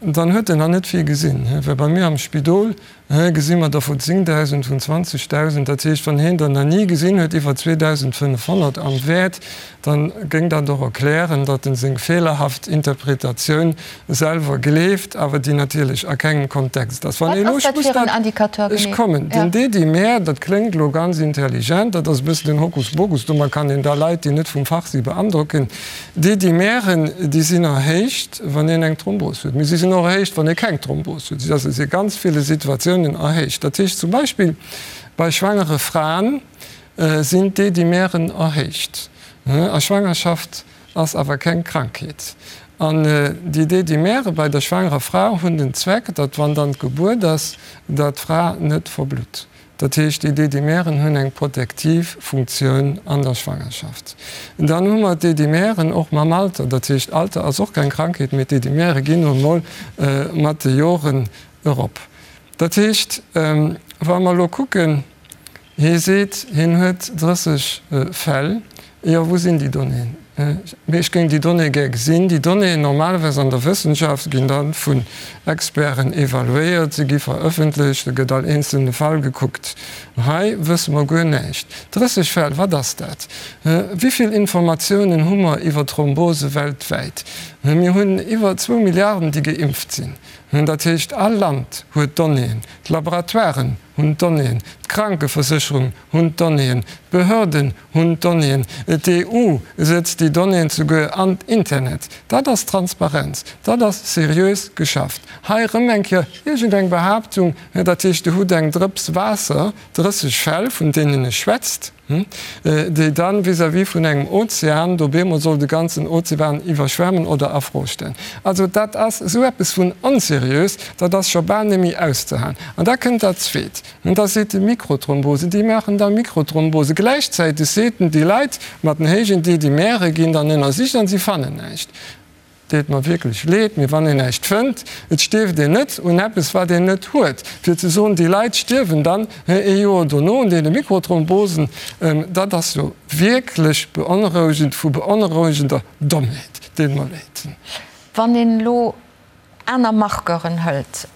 Dann huet en nach net vill gesinn, well bei mir am Spidol gesi mer der vu 10.000, vun 20.000. Dat heescht, wann hien der nach ni gesinn huet, iwwer 2.500 am Wäert, da géing dat och erklären, datt en seng feelerhaft Interpretatioun selwer gleeft, awer déi natierlech a kengem Kontext ass. Wann Wat ass dat fir en Indicateur genee? Ech kommen. Den D-Dimär, dat kléngt elo ganz intelligent, dat ass e bëssen den Hokuspokus, domat kann een da Leit, déi net vum Fach si, beandrocken. D-Dimären, déi sinn erhéicht, wann een eng Thrombos huet, mee si sinn och erhéicht, wann ee keng Thrombos huet. Si si a ganz ville Situatiounen erhéicht. Dat heescht zum Beispill bei schwangere Fraen sinn d'D-Dimären erhéicht. A Schwangerschaft ass awer keng Krankheet. An déi D-Dimäre bei der schwangerer Fra hunn den Zweck, datt wann dann d'Gebuert ass, datt d'Fra net verblutt. Dat heescht, déi D-Dimären hunn eng protektiv Funktioun an der Schwangerschaft. Dann hu mer d'D-Dimären och mam Alter. Dat heescht, Alter ass och keng Krankheet, mee d'D-Dimäre ginn nun emol mat de Joren erop. Dat heescht, wa mer elo kucken, hie seet, hien huet 30 Fäll, Jo, wou sinn déi Donnéeën? Mee ech géing déi Donnéeë gär gesinn. Déi Donnéeën, normalerweis an der Wëssenschaft, ginn da vun Experten evaluéiert, se gi verëffentlecht, da gëtt all eenzelne Fall gekuckt. Hei wësse mer guer näischt. 30 Fäll, wat ass dat? Wéi vill Informatiounen hu mer iwwer Thrombose weltwäit? Mir hunn iwwer zwou Milliarden, déi geimpft sinn. Dat heescht, all Land huet Donnéeën, d'Laboratoiren hunn d'Donnéeën, d'Krankeversécherung hunn d'Donnéeën, d'Behörden hunn d'Donnéeën, d'EU sëtzt déi Donnéeën souguer an d'Internet. Dat ass Transparenz, dat ass seriös geschafft. Hei erëm eng Kéier iergendeng Behaaptung, dat heescht, Dir hutt eng Drëps Waasser, 30 Fäll, vun deenen e schwätzt, déi dann vis-à-vis vun engem Ozean do bemol soll de ganzen Ozean iwwerschwemmen oder a Fro stellen. Also dat ass esou eppes vun onseriös, dat ass scho bal némmi auszehalen. An da kënnt dat Zweet. An da seet e Mikrothrombose, déi maachen da Mikrothrombose. Gläichzäiteg seet en, déi Leit mat den héijen D-Dimere ginn dann ënnersicht an si fannen näischt. Deet mer wierklech leed, mee wann een näischt fënnt, et stierft een net un eppes wat een net huet. Fir ze soen, déi Leit stierwen dann ee Joer dono un deene Mikrothrombosen, dat ass jo wierklech beonrouegend, vu beonrouegender Dommheet. Deet mer leed. Wann een elo aner Marqueuren hëlt.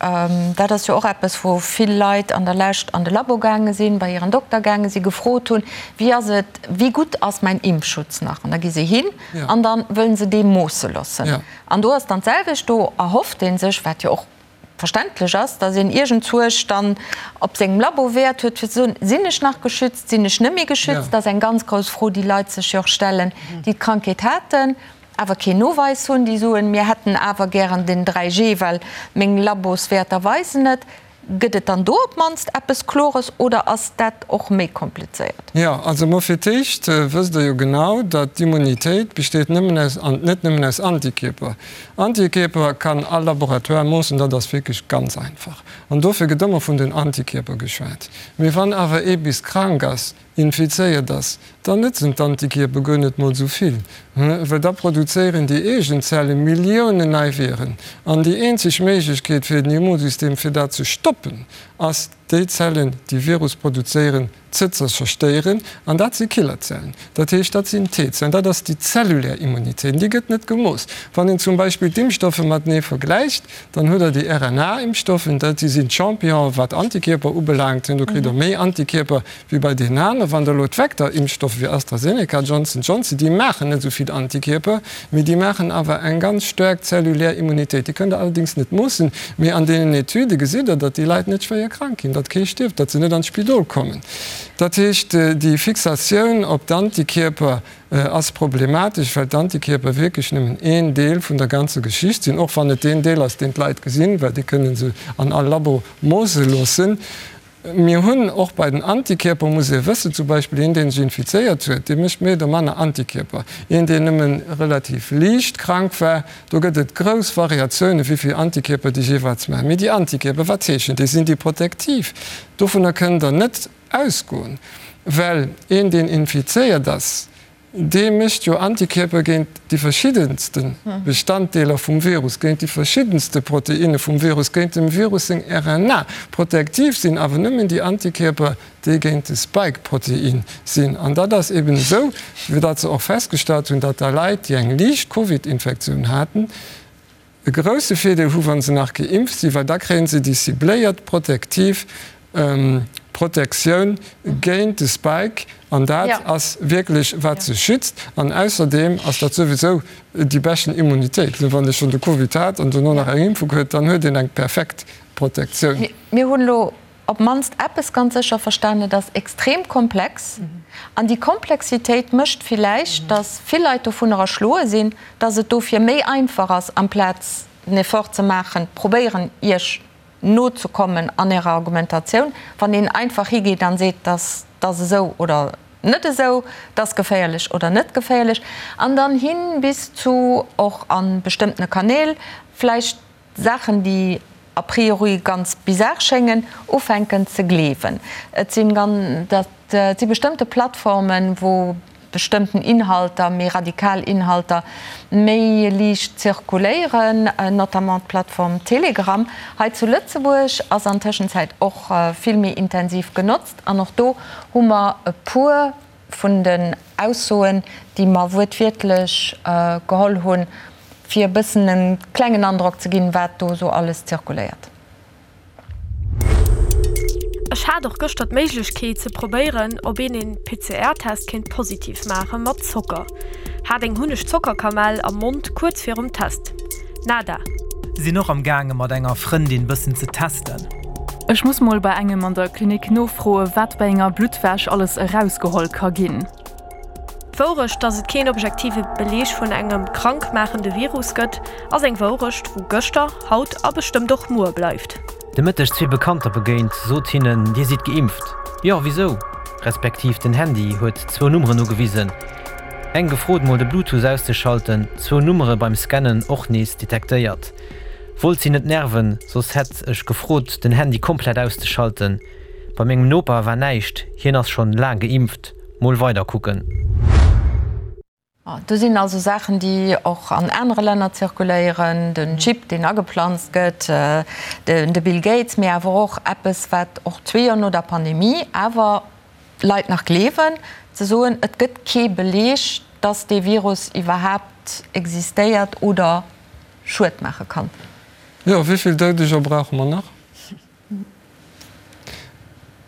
Dat ass jo och eppes, wou vill Leit an der Lescht an de Labo gaange sinn, bei hiren Dokter gaange sinn, gefrot hunn, Wéi ass et, wéi gutt ass mäin Impfschutz nach? An da gi se hin an da wëllen se dee moosse loossen. An do ass dann d'selwecht, do erhofft ee sech, wat jo och verständlech ass, datt een iergendzuerch dann op sengem Labo Wäert huet, fir ze soen, Sinn ech nach geschützt, sinn ech net méi geschützt? Dat ass eng ganz grouss Fro, déi Leit sech jo och stellen, déi d'Krankheet haten. awer keen Noweis hunn, déi soen, mir hätten awer gären den 3G, well meng Laboswäerter weisen et. Gëtt et dann do op d'mannst eppes Klores oder ass dat och méi komplizéiert? Jo, also mol fir d'éischt wësst Der jo genau, datt d'Immunitéit besteet nëmmen aus, an net nëmmen aus Antikierper. Antikierper kann all Laboratoire moossen, dat ass wierklech ganz einfach. An dofir gëtt ëmmer vun den Antikierper geschwat. Mee wann awer ee bis krank ass, infizéiert ass, dann nëtzen d'Antikierper guer net mol sou vill, well da produzéieren déi eegen Zelle Milliounen nei Viren. An déi eenzeg Méiglechkeet fir den Immunsystem fir dat ze stoppen, ass déi Zellen, déi Virus produzéieren, ze zerstéieren. An dat si Killerzellen, dat heescht dat sinn T-Zellen, dat ass déi zellulär Immunitéit, an déi gëtt net gemooss. Wann een zum Beispill d'Impfstoffe matenee vergläicht, Dann hutt Der déi RNA-Impfstoffen, dat déi sinn d'Championen, wat Antikierper ubelaangt. Do kritt Der méi Antikierper wéi bei deenen aneren. Wann Der elo d'Vektor-Impfstoffe wéi AstraZeneca, Johnson Johnson, déi maachen net esou vill Antikierper, mee déi maachen awer eng ganz staark zellulär Immunitéit. Déi kënnt Der allerdéngs net moossen, mee an deenen Etüde gesitt Der, datt déi Leit net schwéier krank ginn, datt kee stierft, datt se net an d'Spidol kommen. Dat heescht, déi Fixatioun op d'Antikierper ass problematesch, well d'Antikierper wierklech nëmmen een Deel vun der ganzer Geschicht sinn, och wann et deen Deel ass, deen d'Leit gesinn, well déi kënne se an all Labo moosse loossen. Mir hunn och bei den Antikierper, muss ee wëssen, zum Beispill een, dee sech infizéiert huet, dee mécht méi oder manner Antikierper. Een, deen nëmme relativ liicht krank war, do gëtt et grouss Variatiounen, wéi vill Antikierper déi jeeweils maachen. Mee déi Antikierper, wat heeschen déi? Sinn déi protektiv? Dovunner kënnt Der net Ausgoen, well een deen infizéiert ass, dee mécht jo Antikierper géint déi verschiddenste Bestanddeeler vum Virus, géint déi verschiddenste Proteinne vum Virus, géint dem Virus seng RNA. Protektiv sinn awer nëmmen déi Antikierper, déi géint de Spike-Protein sinn. An dat ass eben esou, wéi dat se och festgestallt hunn, datt da Leit, déi eng liicht Covid-Infektioun haten. E grousse Virdeel hu wa se nach geimpft sinn, well da kréie se déi cibléiert protektiv Protektioun géint de Spike an dat ass wierklech wat se schützt. An ausserdeem ass dat souwisou déi beschten Immunitéit. Wann ee schonn de Covid hat an dono nach eng Impfung huet, dann huet een eng perfekt Protektioun. Mir hunn elo op d'mannst eppes ganz sécher verstanen, Et ass extrem komplex. An déi Komplexitéit mécht villäicht, datt vill Leit dovunner erschloe sinn, datt et dofir méi einfach ass, amplaz den Effort ze maachen, probéieren, Iech nozekommen an Ärer Argumentatioun, wann een einfach higeet an seet, datt ass esou oder net esou, dat ass geféierlech oder net geféierlech, an dann hin bis zu och a bestëmmtene Kanäl vläicht Saachen, déi a priori ganz bizar schéngen, ufänken ze gleewen. Et sinn dat si bestëmmte Plattformen, wou bestëmmten Inhalter, méi radikal Inhalter, méi liicht zirkuléieren, notamment d'Plattform Telegram. Hei zu Lëtzebuerg ass an Tëschenzäit och vill méi intensiv genotzt an och do hu mer e puer vun den Aussoen, déi mer wuertwiertlech geholl hunn, fir e bëssen e klengen Androck ze ginn, wat do esou alles zirkuléiert. Ech hat och gëschter d'Méiglechkeet ze probéieren op een een PCR-Test kéint positiv maache mat Zocker. Hat eng Hunneg-Zocker-Kamell am Mond kuerz virum Test. Nada. Sinn och am gaange mat enger Frëndin bëssen ze testen. Ech muss mol bei engem an der Klinik nofroe wat bei enger Bluttwäsch alles erausgeholl ka ginn. D'Wourecht, dass et keen objektive Beleeg vun engem krankmaachende Virus gëtt, ass eng Wourecht, wou gëschter, haut a bestëmmt och muer bleift. De Mëtteg zwee Bekannter begéint, sot hinnen, Dir sidd geimpft? Jo, wisou? Respektiv den Handy huet zwou Nummeren ugewisen. Eng gefrot mol de Bluetooth auszeschalten, zwou Nummere beim Scannen och nees detektéiert. Wollt si net nerven, soss hätt ech gefrot den Handy komplett auszeschalten. Bei mengem Noper war näischt, hien ass schonn laang geimpft. Mol weider kucken. Do sinn also Saachen, déi och an anere Länner zirkuléieren, den Chip, deen ageplanzt gëtt, de Bill Gates, mee awer och eppes, wat och zwee Joer no der Pandemie awer Leit nach gleewen, ze soen, et gëtt kee Beleeg, dass dee Virus iwwerhaapt existéiert oder Schued maache kann. Jo, wéi vill Doudeger brauche mer nach?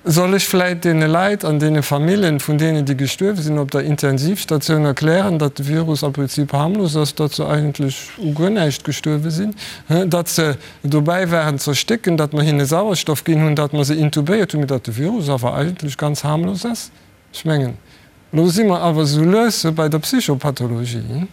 Soll ech vläit deene Leit an deene Famillen vun deenen, déi gestuerwe sinn, op der Intensivstatioun erklären, datt de Virus am Prinzip harmlos ass, datt se eigentlech u guer näischt gestuerwe sinn, datt se dobäi waren z'erstécken, datt mer hinne Sauerstoff ginn hunn, datt mer se intubéiert hunn, mee datt de Virus awer eigentlech ganz harmlos ass? Ech mengen, elo si mer awer esou lues bei der Psychopathologie.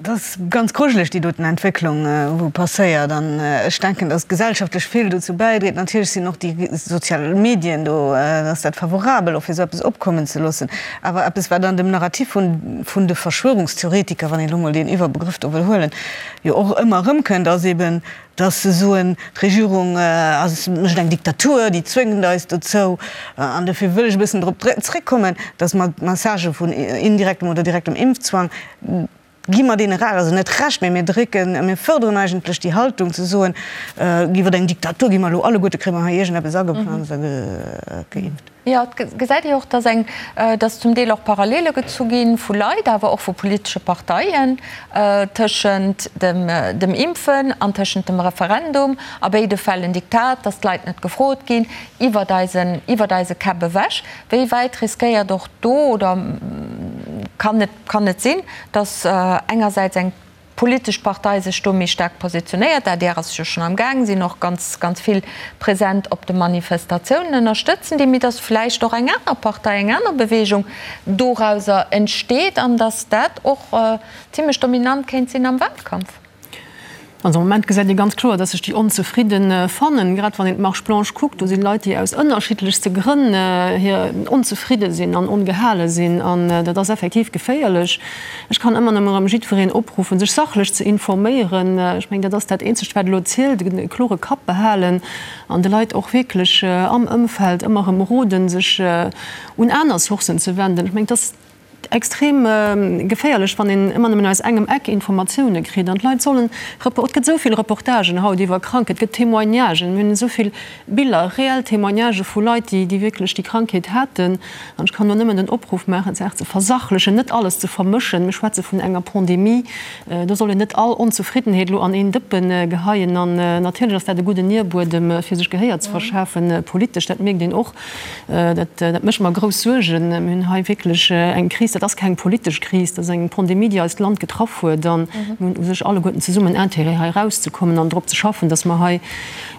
Dat ass ganz grujeleg, déi doten Entwécklung, wou passéiert. An ech denken, datt gesellschaftlech vill dozou bäidréit. Natierlech sinn och déi sozial Medien do, ass dat favorabel och fir esou eppes opkommen ze loossen. Awer eppes, wat an dem Narrativ vun de Verschwörungstheoretiker, wann een elo mol deen Iwwerbegrëff do wëll huelen, jo och ëmmer erëmkënnt, ass eben, Dass se soen, d'Regierung ass, mécht eng Diktatur, déi zwéngt eis dozou. An dofir wëll ech e bëssen drop zréckkommen, dass mer d'Messagë vun indirektem oder direktem Impfzwang, gi mer deene Recht, also net Recht, mä mir drécken, mir fërderen eigentlech déi Haltung ze soen, iwwer eng Diktatur gi mer elo alleguerte, kréie mer hei iergendeppes ageplanzt a geimpft. Jo, et gesäit ee och, dass eng, dass zum Deel och Parallele gezu gi vu Leit, awer och vu politesche Parteien tëschent dem, dem Impfen an tëschent dem Referendum. A béide Fäll en Diktat, dass d'Leit net gefrot ginn, iwwert eisen, iwwert eise Käpp ewech. Wéi wäit riskéiert och do oder kann et, kann et sinn, dass engersäits eng politesch Partei sech do méi staark positionéiert. D'adr ass jo schonn am Gaang, sinn och ganz, ganz vill present op de Manifestatiounen, ënnerstëtzen déi, mee datt vläicht och eng aner Partei, eng aner Beweegung dorauser entsteet an datt dat och zimlech dominant kéint sinn am Wahlkampf. Also am Moment gesäit ee ganz kloer, datt sech déi Onzefridde fannen. Grad wann een d'Marche blanche kuckt, do si Leit, déi aus ënnerschiddlechste Grënn hir onzefridde sinn an ongehale sinn. An dat ass effektiv geféierlech. Ech kann ëmmer nëmme erëm jiddwereen opruffen, sech sachlech ze informéieren. Ech mengen, dat ass dat Eenzegt, wat elo zielt, e klore Kapp behalen an de Leit och wierklech am Ëmfeld ëmmer erëm roden, sech un aner Sourcen ze wenden. Ech mengen, dass. Extrem geféierlech, wann een ëmmer nëmmen aus engem Eck Informatioune kritt. An d'Leit sollen, et gëtt esou vill Reportagen haut iwwer Krankheet, et gëtt Témoignagen, mir hunn esou vill Biller, reell Témoignagë vu Leit, déi déi wierklech déi Krankheet haten. An ech kann do nëmmen den Opruff maachen, d'Saach ze versachlechen, net alles ze vermëschen. Mir schwätze vun enger Pandemie, do soll een net all Onzefriddenheet elo an een Dëppe geheien. An natierlech ass dat e gudden Nierbuedem, fir sech Gehéier ze verschafen, politesch, dat mierkt een och. Dat mécht mer grouss Suergen. Mir hunn hei wierklech eng Kris, dat ass keng politesch Kris, dat ass eng Pandemie, déi eist Land getraff huet. A mir hunn u sech alleguerten zesummen Intérêt, hei erauszekommen an drop ze schaffen, datt mer hei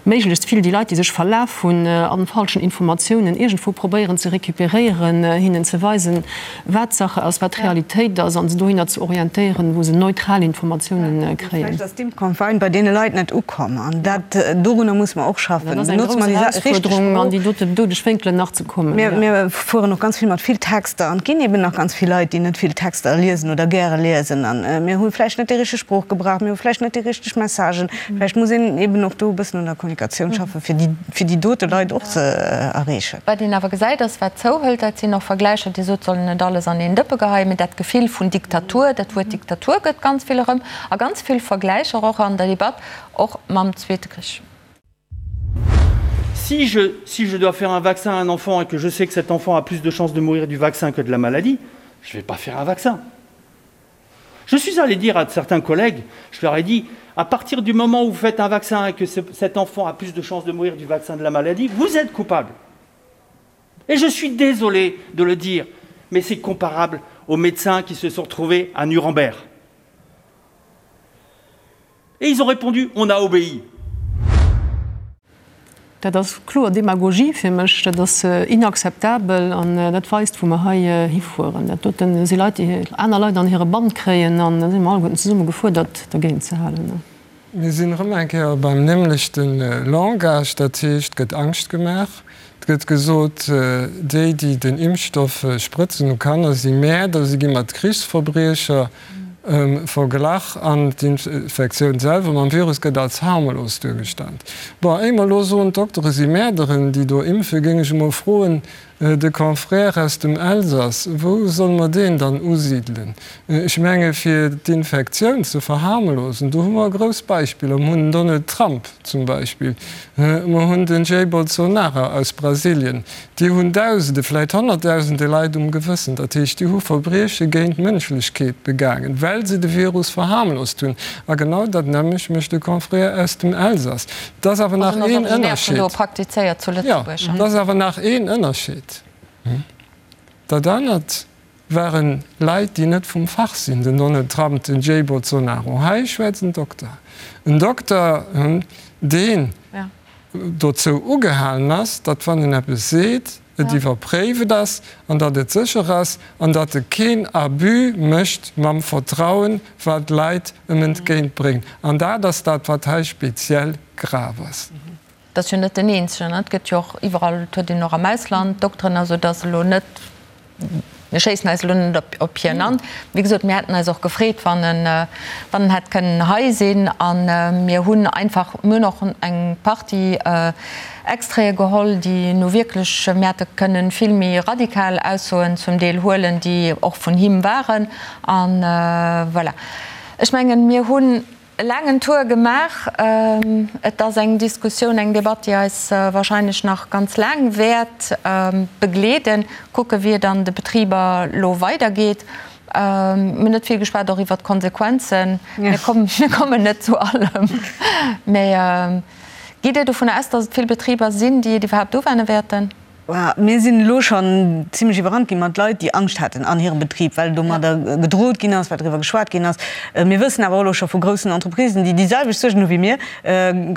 méiglechst vill déi Leit, déi sech verlaf hunn a falschen Informatiounen, iergendwou probéieren ze recuperéieren, hinnen ze weisen, wat Sache ass, wat Realitéit ass, a se dohinner ze orientéieren, wou se neutral Informatiounen kréien. Vläicht ass d'Impfcampagne bei deene Leit net ukomm, an dat, dorunner musse mer och schaffen. Dat ass eng grouss Erausfuerderung, an déi dote doudeg Wénkelen nach ze kommen. Mir fueren och ganz vill mat vill Texter, an et ginn eben nach ganz vill Leit, déi net vill Texter liesen oder gäre liesen. A mir hu vläicht net déi richteg Sprooch gebraucht, mir hu vläicht net déi richteg Messagen. Vläicht muss een eben och do e bëssen un der Kommunikatioun schaffen, fir déi, fir déi dote Leit och ze erreechen. Wat een awer gesäit, ass, wat zouhëlt, dat sinn och Vergläicher, Dir sot, soll een net alles an een Dëppe geheien, mee dat Gefill vun Diktatur, dat Wuert Diktatur gëtt ganz vill erëm a ganz vill Vergläicher och an der Debatt, och mam Zweete Krich. Si je, si je dois faire un vaccin à un enfant et que je sais que cet enfant a plus de chances de mourir du vaccin que de la maladie, je ne vais pas faire un vaccin. Je suis allé dire à certains collègues, je leur ai dit, à partir du moment où vous faites un vaccin et que ce, cet enfant a plus de chances de mourir du vaccin de la maladie, vous êtes coupable. Et je suis désolé de le dire, mais c'est comparable aux médecins qui se sont retrouvés à Nuremberg. Et ils ont répondu: On a obéi. Dat ass kloer Demagogie fir mech, dat ass inakzeptabel an dat weist, wou mer hei hifueren. Dat dote si Leit, déi aner Leit an hire Bann kréien an da si mer alleguerten zesumme gefuerdert, dergéint ze halen. Mir sinn erëm eng Kéier beim nämlechte Langage, dat heescht, et gëtt Angscht gemaach, et gëtt gesot, déi, déi den Impfstoff sprëtzen u Kanner, si Mäerder, si gi mat Krichsverbriecher verglach an d'Infektioun selwer mam Virus gëtt als harmlos duergestallt. Bon, éier mer elo soen, d'Doktere si Mäerderen, déi do impfen, géing ech emol froen, de Confrère aus dem Elsass, wou solle mer deen dann usidelen? Ech menge fir d'Infektioun ze verharmlosen, do hu mer grouss Beispiller. Mer hunn den Donald Trump zum Beispill, mer hunn den Jair Bolsonaro aus Brasilien, Déi hunn Dausende, vläit Honnertdausende Leit um Gewëssen. Dat heescht, déi hu Verbrieche géint d'Mënschlechkeet begaangen, well se de Virus verharmlost hunn. A genau dat nämmlecht mécht de Confrère aus dem Elsass. Et ass awer nach een Ënnerscheed. Jo, et ass awer nach een Ënnerscheed. Dat anert ware Leit, déi net vum Fach sinn, den Donald Trump, den Jair Bolsonaro. Hei schwätzt en Dokter. En Dokter, deen dozou ugehalen ass, datt wann en eppes seet, et iwwerpréiwt ass an datt et sécher ass an datt e keen Abus mécht mam Vertrauen, wat d'Leit em entgéint bréngen. An dat ass dat, wat hei speziell grav ass. Et ass jo net den eenzegen, et gëtt jo och iwwerall, et huet een och am Ausland Dokteren, also et ass elo net, mir schéissen eis elo net op hien an. Wéi gesot, mir hätten eis och gefreet, wann en, wann en hätt kënnen hei sinn. A mir hunn einfach, mir hunn och eng Partie Extraite geholl, déi nu wierklech, mir hätte kënnen vill méi radikal Aussoen zum Deel huelen, déi och vun him waren. A voilà. Ech mengen, mir hunn E laangen Tour gemaach. Et ass eng Diskussioun, eng Debatt, déi eis wahrscheinlech nach ganz laang wäert begleeden. Kucke wéi et an de Betriber elo weidergeet. Mir hunn net vill geschwat och iwwert d'Konsequenzen. Mir kommen net zu allem. Mä gitt Dir dovun aus, datt et vill Betriber sinn, déi et iwwerhaapt uwenne wäerten? Mir sinn elo schonn zimlech iwwerrannt gi mat Leit, déi Angscht haten an hirem Betrib, well domadder gedroht ginn ass, well driwwer geschwat ginn ass. Mir wëssen awer och elo scho vu groussen Entreprisen, déi déi selwecht Suergen hu wéi mir,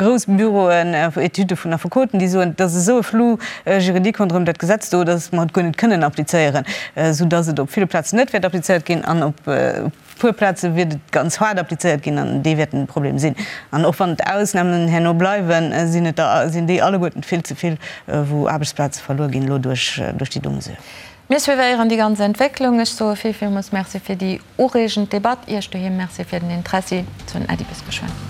grouss Büroen, Etüde vun Affekoten, déi soen, et ass esou e Flou juridique ronderëm dat Gesetz do, datt mer et guer net kënnen applizéieren, soudatt et op ville Plazen net wäert applizéiert ginn an op puer Plaze wiert et ganz haart applizéiert ginn an déi wäerten de Problem sinn. An och wann d'Ausnamen herno bleiwen, sinn et der, sinn déi alleguerten vill ze vill, wou Aarbechtsplaze verluer ginn elo duerch déi do Mesure. Mir suivéieren déi ganz Entwécklung. Ech soe vill, villmools Merci fir déi ureegend Debatt. Iech doheem Merci fir den Interessi. Soen Äddi bis geschwënn.